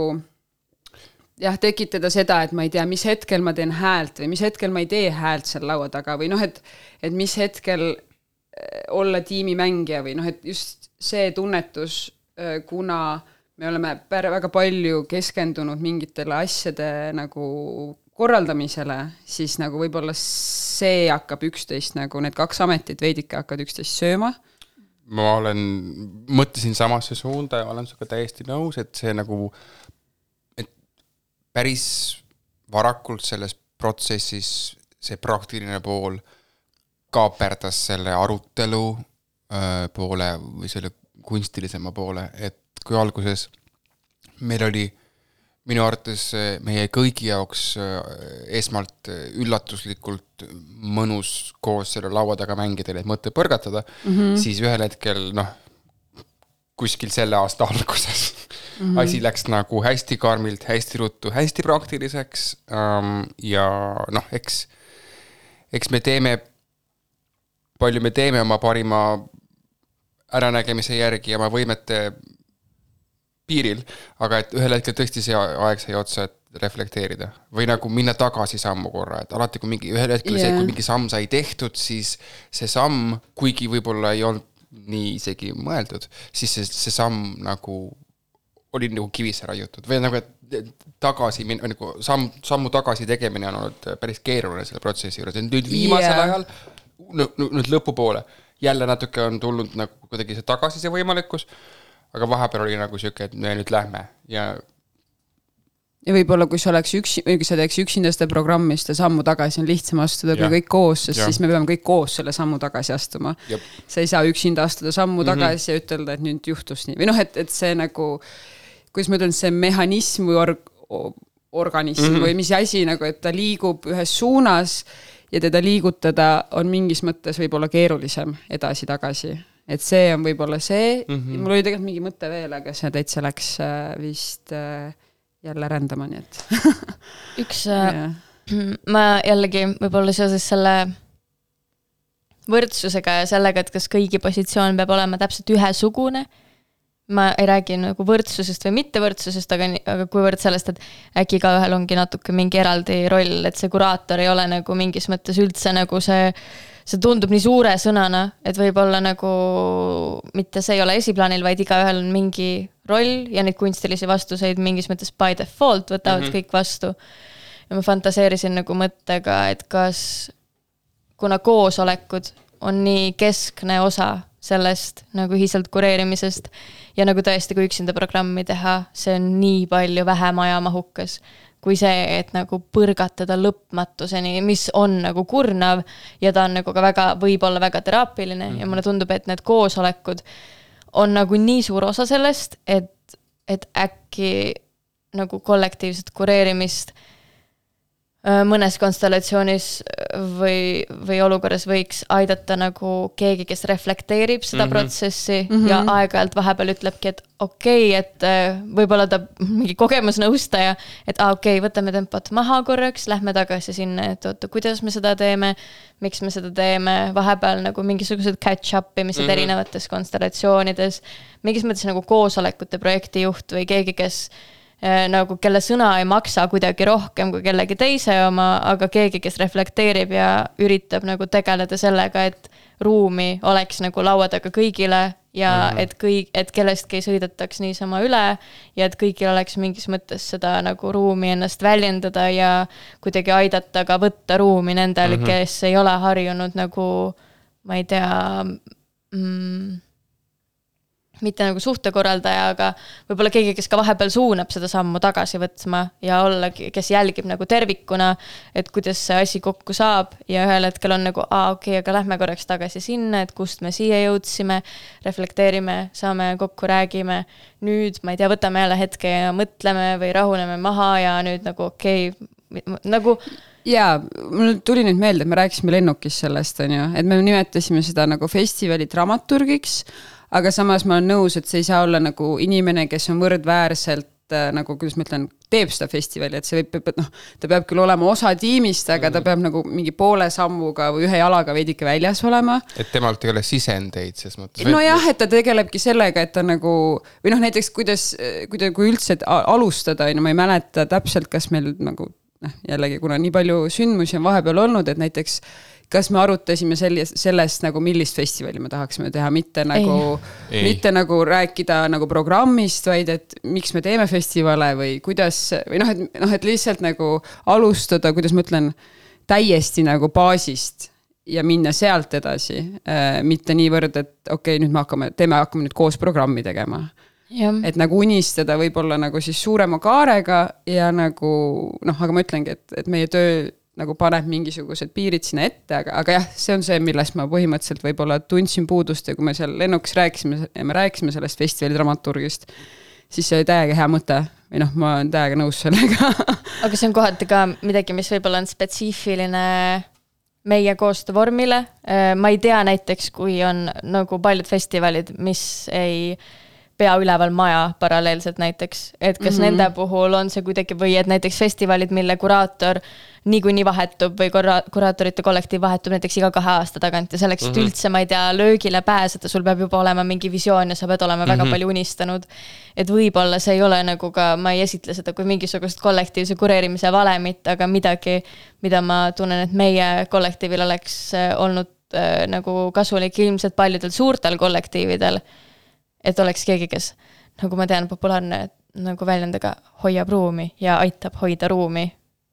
tekitada seda, et ma ei tea, mis hetkel ma teen häält või mis hetkel ma ei tee häält seal laua taga või et mis hetkel olla tiimimängija või et just see tunnetus, kuna me oleme väga palju keskendunud mingitele asjade nagu korraldamisele, siis nagu võib-olla see hakkab üksteist nagu need kaks ametit veidike hakkavad üksteist sööma. Ma mõtlesin samasse suunda ja olen suga täiesti nõus, et see nagu päris varakult selles protsessis see praktiline pool kaaperdas selle arutelu poole või selle kunstilisema poole, et kui alguses meil oli minu arvates meie kõigi jaoks esmalt üllatuslikult mõnus koos selle laua taga mängida, et mõtte põrgatada, siis ühel hetkel, kuskil selle aasta alguses asi läks nagu hästi karmilt, hästi ruttu, hästi praktiliseks ja eks me teeme, palju me teeme oma parima äranägemise järgi ja oma võimete piiril, aga et ühel hetkel tõesti see aeg sai otsa, et reflekteerida või nagu minna tagasi sammu korra, et alati kui ühel hetkel see, kui mingi samm sai tehtud, siis see samm, kuigi võib-olla ei olnud nii isegi mõeldud, siis see samm nagu oli nagu kivisse raiutud või nagu, et tagasi, nagu sammu tagasi tegemine on olnud päris keeruline selle protsessi juures. Nüüd viimasel ajal, nüüd lõpupoole, jälle natuke on tulnud nagu kuidagi see tagasi see võimalikkus, aga vahepeal oli nagu siuke, et me nüüd lähme ja võib-olla, kui sa teeks üksinda seda programmi, seda sammu tagasi on lihtsam astuda kui kõik koos, sest siis me peame kõik koos selle sammu tagasi astuma. Sa ei saa üksinda astuda sammu tagasi ja ütelda, et nüüd juhtus nii. Või et see nagu, kuidas ma ütlen, see mehhanism või organism või mis asi, nagu, et ta liigub ühes suunas ja teda liigutada on mingis mõttes võib-olla keerulisem edasi-tagasi. Et see on võib-olla see. Mul oli tegelikult mingi mõte veel, aga see täitsa läks vist jälle rändama, nii et ma jällegi võib-olla seoses selle võrdsusega ja sellega, et kas kõigi positsioon peab olema täpselt ühesugune. Ma ei räägi nagu võrdsusest või mittevõrdsusest, aga kuivõrd sellest, et äkki ka ühel ongi natuke mingi eraldi roll, et see kuraator ei ole nagu mingis mõttes üldse nagu see tundub nii suure sõnana, et võib-olla nagu mitte see ei ole esiplaanil, vaid igaühel on mingi roll ja neid kunstilisi vastuseid mingis mõttes by default võtavad kõik vastu. Ja ma fantaseerisin nagu mõttega, et kas kuna koosolekud on nii keskne osa sellest nagu ühiselt kureerimisest ja nagu tõesti, kui üksinda programmi teha, see on nii palju vähem ajamahukas kui see, et nagu põrgatada lõpmatuseni, mis on nagu kurnav ja ta on nagu ka väga, võib-olla väga teraapiline ja mulle tundub, et need koosolekud on nagu nii suur osa sellest, et äkki nagu kollektiivset kureerimist mõnes konstellatsioonis või olukorras võiks aidata nagu keegi, kes reflekteerib seda protsessi ja aeg-ajalt vahepeal ütlebki, et okei, et võib-olla ta mingi kogemusnõustaja, et okei, võtame tempot maha korraks, lähme tagasi sinna, et oota, kuidas me seda teeme, miks me seda teeme, vahepeal nagu mingisugused catch-up imised erinevates konstellatsioonides, mingis mõttes nagu koosolekute projektijuht või keegi, kes nagu kelle sõna ei maksa kuidagi rohkem kui kellegi teise oma, aga keegi, kes reflekteerib ja üritab nagu tegeleda sellega, et ruumi oleks nagu laua taga kõigile ja et kellestki ei sõidataks niisama üle ja et kõigil oleks mingis mõttes seda nagu ruumi ennast väljendada ja kuidagi aidata ka võtta ruumi nendel, kes ei ole harjunud nagu, ma ei tea, mitte nagu suhtekorraldaja, aga võib-olla keegi, kes ka vahepeal suunab seda sammu tagasi võtma ja ollagi, kes jälgib nagu tervikuna, et kuidas see asi kokku saab ja ühel hetkel on nagu, okei, aga lähme korraks tagasi sinna, et kust me siia jõudsime, reflekteerime, saame kokku, räägime, nüüd, ma ei tea, võtame jälle hetke ja mõtleme või rahuneme maha ja nüüd nagu okei, nagu jaa, mul tuli nüüd meelde, et me rääkisime lennukis sellest, on ju, et me nimetasime seda nagu festivali dramaturgiks, aga samas ma olen nõus, et see ei saa olla nagu inimene, kes on võrdväärselt nagu, kuidas ma ütlen, teeb seda festivali, et see võib, noh, ta peab küll olema osa tiimist, aga ta peab nagu mingi poole sammuga või ühe jalaga veidike väljas olema. Et temalt ei ole sisendeid ses mõttes. No jah, et ta tegelebki sellega, et ta nagu, või noh, näiteks kui üldse alustada, ma ei mäleta täpselt, kas meil nagu, jällegi, kuna nii palju sündmusi on vahepeal olnud, et näiteks kas me arutasime sellest nagu millist festivali me tahaksime teha, mitte nagu rääkida nagu programmist, vaid et miks me teeme festivale või kuidas, või et lihtsalt nagu alustada, kuidas ma ütlen, täiesti nagu baasist ja minna sealt edasi, mitte niivõrd, et okei, nüüd me hakkame nüüd koos programmi tegema. Ja. Et nagu unistada võib-olla nagu siis suurema kaarega ja nagu, aga ma ütlengi, et meie töö nagu paneb mingisugused piirid sinna ette, aga jah, see on see, millest ma põhimõtteliselt võib-olla tundsin puudust ja kui me seal lennukis rääkisime sellest festivali dramaturgist, siis see oli täiega hea mõte või ma olen täiega nõus sellega. Aga see on kohati ka midagi, mis võib-olla on spetsiifiline meie koostöövormile. Ma ei tea näiteks, kui on nagu paljud festivalid, mis ei pea üleval maja paralleelselt näiteks, et kas nende puhul on see kuidagi või et näiteks festivalid, mille kuraator niikuinii vahetub või kuraatorite kollektiiv vahetub näiteks iga 2 aasta tagant ja selleks, et üldse, ma ei tea, löögile pääseda, sul peab juba olema mingi visioon ja sa pead olema väga palju unistanud. Et võib-olla see ei ole nagu ka, ma ei esitle seda kui mingisugust kollektiivse kureerimise valemit, aga midagi, mida ma tunnen, et meie kollektiivil oleks olnud nagu kasulik ilmselt paljudel suurtel kollektiividel, et oleks keegi, kes, nagu ma tean, populaarne nagu väljendaga hoiab ruumi ja aitab hoida ruumi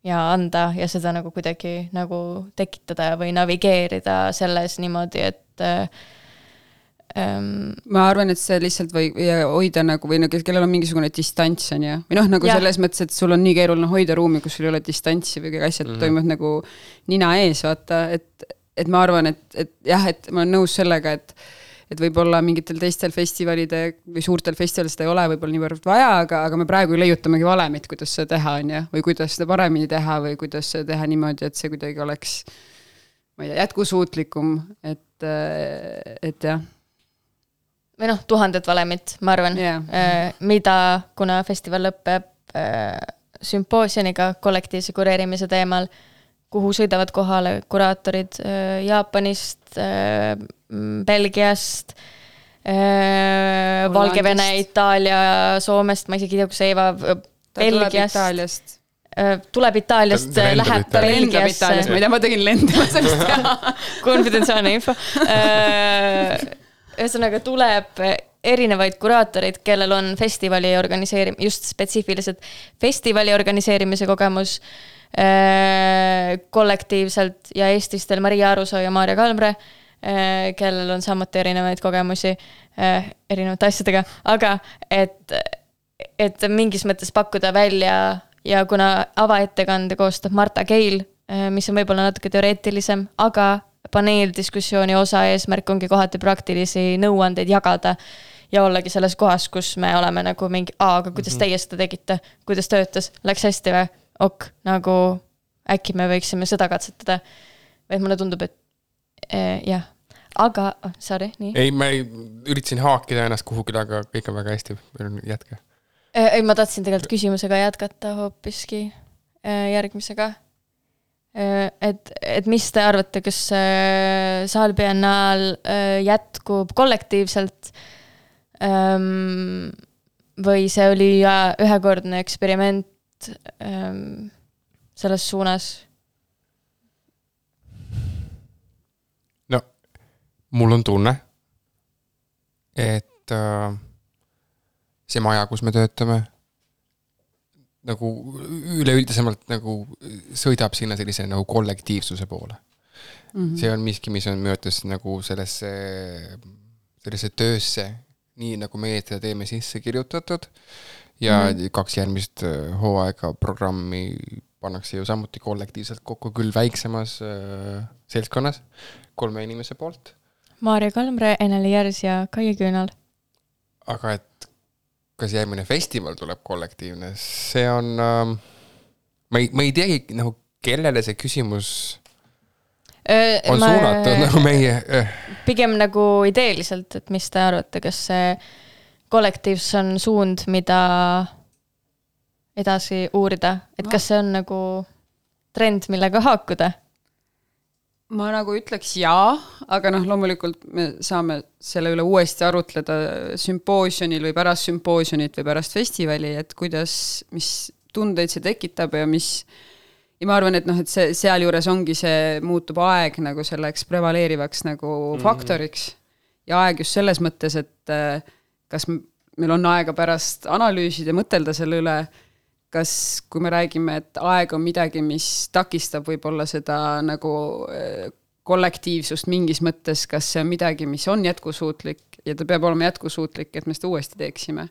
ja anda ja seda nagu kuidagi nagu tekitada või navigeerida selles niimoodi, et ma arvan, et see lihtsalt või hoida nagu, või kellel on mingisugune distants on ju, või nagu selles mõttes, et sul on nii keeruline hoida ruumi, kus sul ei ole distantsi või kõik asjad toimuvad nagu nina ees, vaata, et ma arvan, et jah, et ma olen nõus sellega, et võib-olla mingitel teistel festivalide või suurtel festivalid seda ei ole võib-olla niivõrd vaja, aga me praegu leiutamegi valemit, kuidas seda teha on ja, või kuidas seda paremini teha või kuidas seda teha niimoodi, et see kuidagi oleks, ma ei tea, jätkusuutlikum, et jah. Või 1000 valemit, ma arvan, mida, kuna festival lõpeb sümpoosioniga kollektiivse kureerimise teemal, kuhu sõidavad kohale kuraatorid Jaapanist, Belgiast, Valgevene, Itaalia, Soomest, ma isegi ei tea, kus Eeva, Belgiast. Tuleb Itaaliast, läheb Belgiasse. Ma ei tea, ma tegin lendama sellest teha. Konfidentsiaalne info. Ühesõnaga tuleb erinevaid kuraatoreid, kellel on festivali just spetsiifiliselt festivali organiseerimise kogemus, kollektiivselt ja Eestistel Maria Arusoo ja Maarja Kalmre, kellel on samuti erinevaid kogemusi erinevate asjadega, aga et mingis mõttes pakkuda välja ja kuna avaettekande koostab Marta Keil, mis on võib-olla natuke teoreetilisem, aga paneeldiskussiooni osa eesmärk ongi kohati praktilisi nõuandeid jagada ja ollagi selles kohas, kus me oleme nagu mingi, aga kuidas teie seda tegite, kuidas töötas, läks hästi või? Ok, nagu äkki me võiksime seda katsetada. Või mulle tundub, et jah. Aga, sorry, nii. Ei, ma üritasin haakida ennast kuhugile, aga kõik on väga hästi. Jätke. Ei, ma tahtsin tegelikult küsimusega jätkata hoopiski järgmisega. Et mis te arvate, kas Saalbiennaal jätkub kollektiivselt või see oli ühekordne eksperiment selles suunas? No, mul on tunne, et see maja, kus me töötame, nagu üleüldisemalt nagu sõidab sinna sellise nagu kollektiivsuse poole. See on miski, mis on möödas nagu sellesse töösse, nii nagu meie seda teeme sisse kirjutatud ja 2 järgmist hooaega programmi pannakse ju samuti kollektiivselt kokku, küll väiksemas seltskonnas 3 inimese poolt. Maarja Kalmre, Eneli Järs ja Kaie Küünal. Aga et kas järgmine festival tuleb kollektiivne, see on ma ei teagi nagu kellele see küsimus on suunatud nagu meie pigem nagu ideeliselt, et mis te arvate, kas see kollektiivs on suund, mida edasi uurida, et kas see on nagu trend, millega haakuda? Ma nagu ütleks jaa, aga loomulikult me saame selle üle uuesti arutleda sümpoosjonil või pärast sümpoosjonit või pärast festivali, et kuidas, mis tundeid see tekitab ja ma arvan, et et see seal juures ongi see muutub aeg nagu selleks prevaleerivaks nagu faktoriks ja aeg just selles mõttes, et kas meil on aega pärast analüüsida ja mõtelda selle üle, kas, kui me räägime, et aeg on midagi, mis takistab võib-olla seda nagu kollektiivsust mingis mõttes, kas see on midagi, mis on jätkusuutlik ja ta peab olema jätkusuutlik, et me seda uuesti teeksime.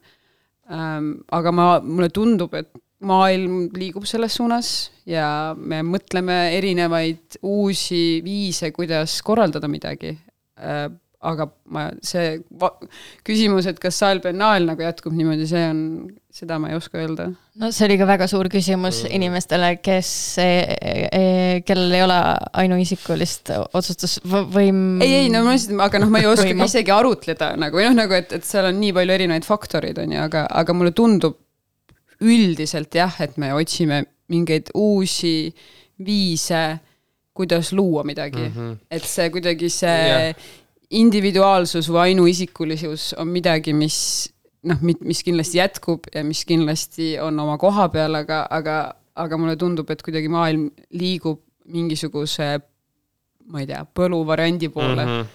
Aga mulle tundub, et maailm liigub selles suunas ja me mõtleme erinevaid uusi viise, kuidas korraldada midagi. Aga see küsimus, et kas Saalbiennaal nagu jätkub niimoodi, seda ma ei oska öelda. No see oli ka väga suur küsimus inimestele, kellel ei ole ainuisikulist otsustusvõim. Ei, aga ma ei oska isegi arutleda, et seal on nii palju erinevaid faktoreid, aga mulle tundub üldiselt jah, et me otsime mingeid uusi viise, kuidas luua midagi. Et see kuidagi individuaalsus või ainuisikulisus on midagi, mis kindlasti jätkub ja mis kindlasti on oma koha peal, aga mulle tundub, et kuidagi maailm liigub mingisuguse, ma ei tea, põluvariandi poole,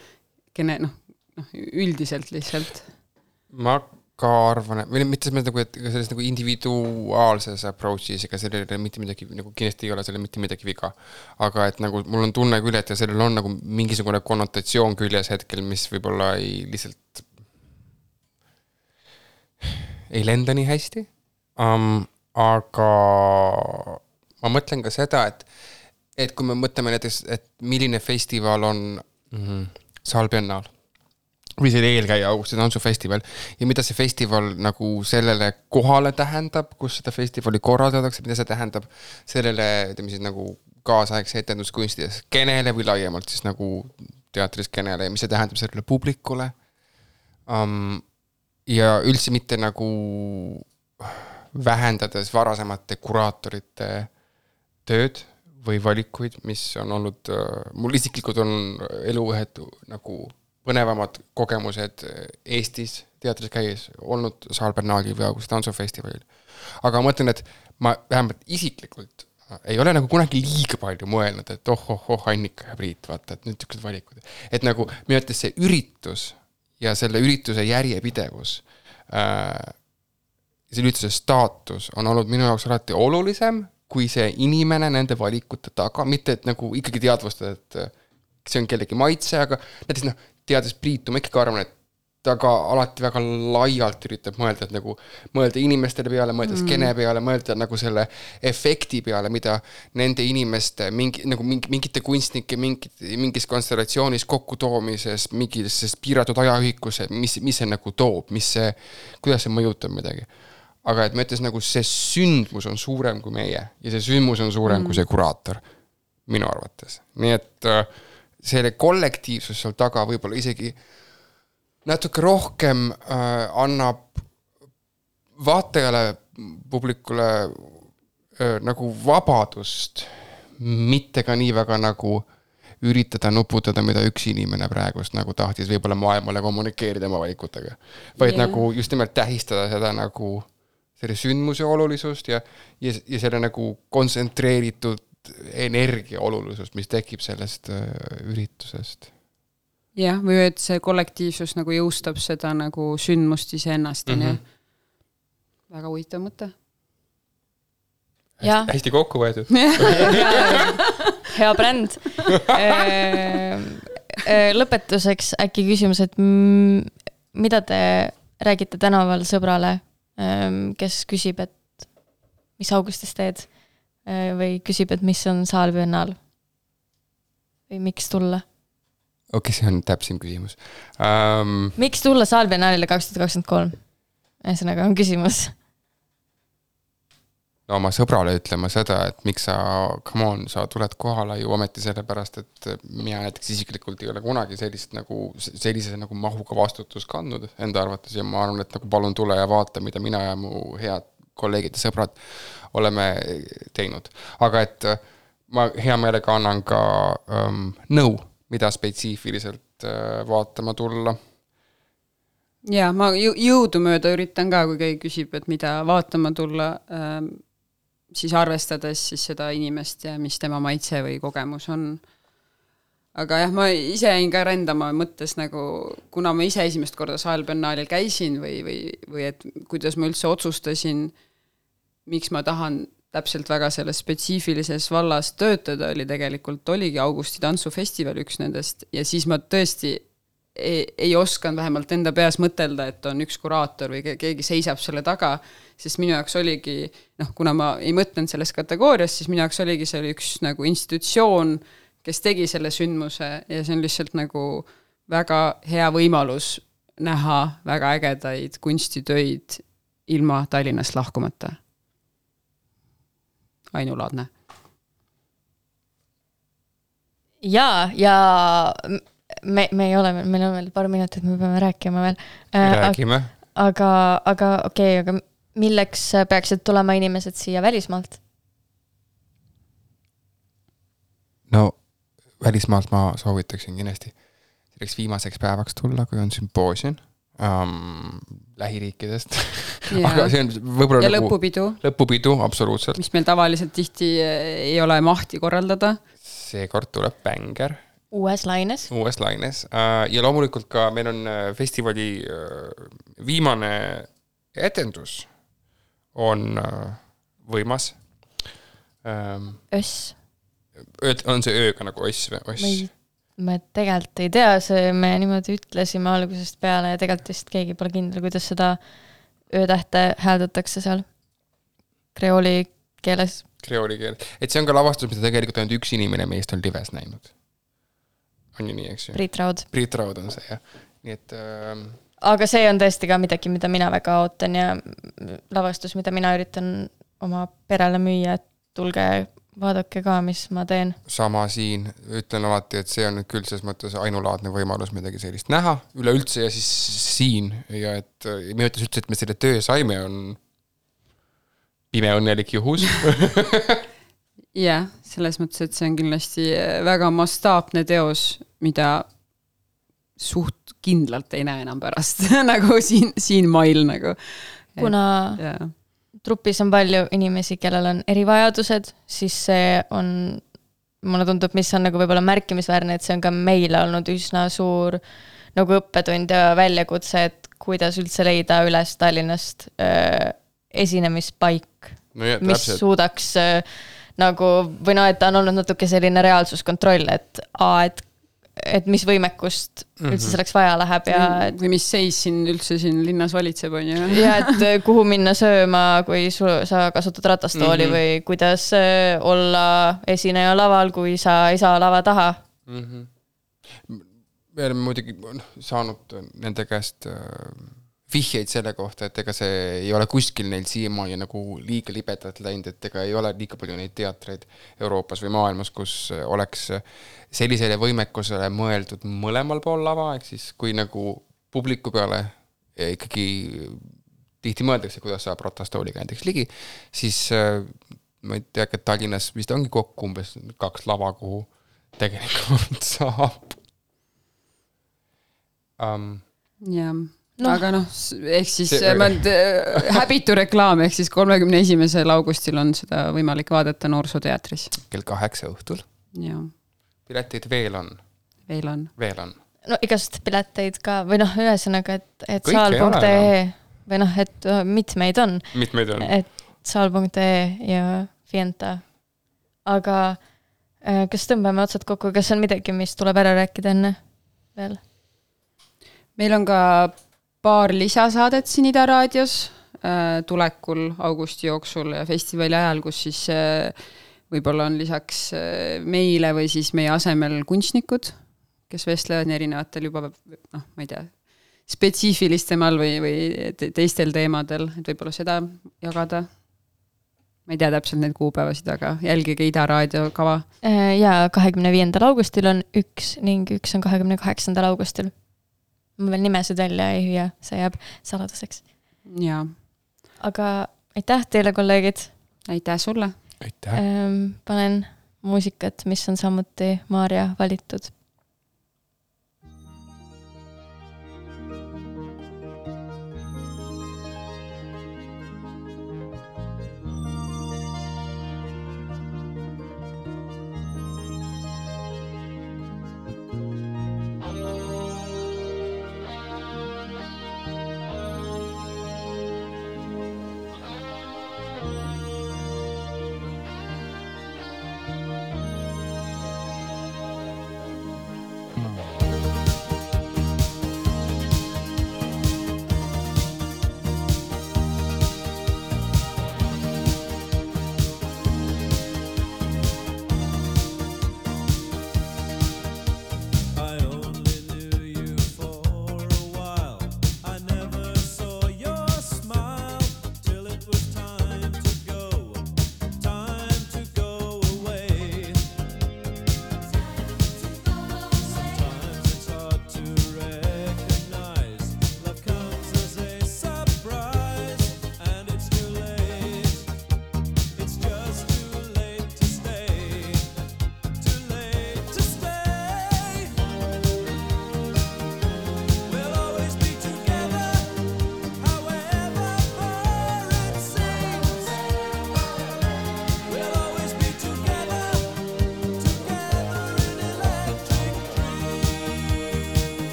üldiselt lihtsalt. Ma ka arvan, või mitte selles nagu individuaalses approach'is, ega sellele mitte midagi, nagu kindlasti ei ole selle mitte midagi viga. Aga et nagu mul on tunne küll, et sellel on nagu mingisugune konnotatsioon küljes hetkel, mis võib-olla lihtsalt ei lenda nii hästi. Aga ma mõtlen ka seda, et kui me mõtleme näiteks, et milline festival on Saalbiennaal, või see eelkäija Augusti tantsufestival ja mida see festival nagu sellele kohale tähendab, kus seda festivali korraldatakse, mida see tähendab sellele, ütleme siis nagu kaasaegse etenduskunstides skenele või laiemalt siis nagu teatriskenele ja mis see tähendab sellele publikule. Ja üldse mitte nagu vähendades varasemate kuraatorite tööd või valikuid, mis on olnud, mul isiklikult on eluühed nagu põnevamad kogemused Eestis teatris käies olnud Saalbiennaalil või Augusti tantsufestivalil. Aga ma mõtlen, et ma vähemalt isiklikult ei ole nagu kunagi liiga palju mõelnud, et Annika ja Priit, vaata, et nüüd tüksed valikud. Et nagu minu ütles see üritus ja selle ürituse järjepidevus, selle ürituse staatus on olnud minu jaoks alati olulisem, kui see inimene nende valikute taga, mitte et nagu ikkagi teadvustada, et see on kellegi maitse, aga näiteks teades Priitu, ma ikkagi arvan, et ta ka alati väga laialt üritab mõelda, et nagu mõelda inimestele peale, mõelda skene peale, mõelda nagu selle efekti peale, mida nende inimeste mingite kunstnike mingis konstellatsioonis kokkutoomises, mingis piiratud ajaühikus, mis see nagu toob, kuidas see mõjutab midagi. Aga et ma ütles, nagu see sündmus on suurem kui meie ja see sündmus on suurem kui see kuraator, minu arvates. Nii et selle kollektiivsus seal taga võib-olla isegi natuke rohkem annab vaatajale, publikule nagu vabadust, mitte ka nii väga nagu üritada nuputada, mida üks inimene praegust nagu tahtis võib-olla maailmale kommunikeerida oma valikutega. Vaid nagu just nimelt tähistada seda nagu selle sündmuse olulisust ja selle nagu kontsentreeritud energia olulisust, mis tekib sellest üritusest. Jah, või et see kollektiivsus nagu jõustab seda nagu sündmust iseennast. Väga huvitav mõte. Hästi kokku võetud. Hea bränd. Lõpetuseks äkki küsimus, et mida te räägite tänaval sõbrale, kes küsib, et mis augustis teed või küsib, et mis on Saalbiennal või miks tulla? Okei, see on täpsim küsimus. Miks tulla Saalbiennaalile 2023? Ühesõnaga on küsimus. No oma sõbrale ütlema seda, et miks sa tuled kohale ju ometi sellepärast, et mina näiteks isiklikult ei ole kunagi sellise nagu mahuga vastutus kandnud enda arvates ja ma arvan, et nagu palun tule ja vaata, mida mina ja mu head kolleegid ja sõbrad oleme teinud. Aga et ma hea meelega annan ka nõu, mida spetsiifiliselt vaatama tulla. Ja, ma jõudu mööda üritan ka, kui keegi küsib, et mida vaatama tulla, siis arvestades siis seda inimest ja mis tema maitse või kogemus on. Aga jah, ma ise jäin ka rändama mõttes nagu, kuna ma ise esimest korda Saalbiennaalil käisin või et kuidas ma üldse otsustasin, miks ma tahan täpselt väga selles spetsiifilises vallas töötada, oligi Augusti tantsufestival üks nendest ja siis ma tõesti ei osanud vähemalt enda peas mõtelda, et on üks kuraator või keegi seisab selle taga, sest minu jaoks oligi, kuna ma ei mõtlenud selles kategoorias, siis minu jaoks oligi see üks nagu institutsioon, kes tegi selle sündmuse ja see on lihtsalt nagu väga hea võimalus näha väga ägedaid kunstitöid ilma Tallinnast lahkumata. Ainulaadne. Ja me ei ole, meil on veel paar minutit, me peame rääkima veel. Räägime. Aga okei, aga milleks peaksid tulema inimesed siia välismaalt? No välismaalt ma soovitaksin kindlasti selleks viimaseks päevaks tulla, kui on sümpoosium lähiriikidest. Aga see on võib-olla ja lõpupidu, absoluutselt. Mis meil tavaliselt tihti ei ole mahti korraldada. Seekord tuleb Bänger. Uues laines. Ja loomulikult ka meil on festivali viimane etendus on võimas. Öss. On see ööga nagu öss? Me tegelikult ei tea, me niimoodi ütlesime algusest peale ja tegelikult vist keegi pole kindel, kuidas seda öötähte hääldatakse seal kreooli keeles. Et see on ka lavastus, mida tegelikult ainult üks inimene meist on lives näinud. On ju nii, eks ju? Priit Raud on see, jah. Nii et, aga see on tõesti ka midagi, mida mina väga ootan ja lavastus, mida mina üritan oma perele müüa, et tulge vaadake ka, mis ma teen. Sama siin, ütlen alati, et see on küll selles mõttes ainulaadne võimalus midagi sellist näha üleüldse ja siis siin ja et me ütles üldse, et me selle töö saime on pime õnnelik juhus. Jah, selles mõttes, et see on kindlasti väga mastaapne teos, mida suht kindlalt ei näe enam pärast nagu siin mail nagu. Kuna trupis on palju inimesi, kellel on erivajadused, siis see on, mulle tundub, mis on nagu võib-olla märkimisväärne, et see on ka meile olnud üsna suur nagu õppetund ja väljakutse, et kuidas üldse leida üles Tallinnast esinemispaik, mis suudaks nagu, või et ta on olnud natuke selline reaalsuskontroll, et et mis võimekust üldse selleks vaja läheb ja et, või mis seis siin üldse siin linnas valitseb, on ju. ja et kuhu minna sööma, kui sa kasutad ratastooli või kuidas olla esineja laval, kui sa ei saa lava taha. Me oleme muidugi saanud nende käest vihjeid selle kohta, et ega see ei ole kuskil neil siiamaani nagu liiga libedalt läinud, et ega ei ole liiga palju neid teatreid Euroopas või maailmas, kus oleks sellisele võimekusele mõeldud mõlemal pool lava, ehk siis kui nagu publiku peale ikkagi tihti mõeldakse, kuidas saab ratastooliga näiteks ligi, siis ma ei tea, et Tallinnas vist ongi kokku umbes 2 lava, kuhu tegelikult saab. Jah. No. Aga ehk siis häbitu reklaam, ehk siis 31. augustil on seda võimalik vaadata Noorsooteatris. Kell 8 õhtul. Ja. Pileteid veel on. Veel on. No igast pileteid ka, või ühesõnaga, et saal.ee või et mitmeid on. Et saal.ee ja Fienta. Aga kas tõmbame otsad kokku, kas on midagi, mis tuleb ära rääkida enne veel? Meil on ka paar lisasaadet siin Ida Raadios tulekul augusti jooksul ja festivali ajal, kus siis võib-olla on lisaks meile või siis meie asemel kunstnikud, kes vestlevad erinevatel juba, ma ei tea, spetsiifilistemal või teistel teemadel, et võib-olla seda jagada. Ma ei tea täpselt neid kuupäevasid, aga jälgige Ida Raadio kava. Ja 25. augustil on 1 ning 1 on 28. augustil. Ma veel nimesid välja ei hüüa, see jääb saladuseks. Jaa. Aga aitäh teile, kolleegid. Aitäh sulle. Aitäh. Panen muusikat, mis on samuti Maarja valitud.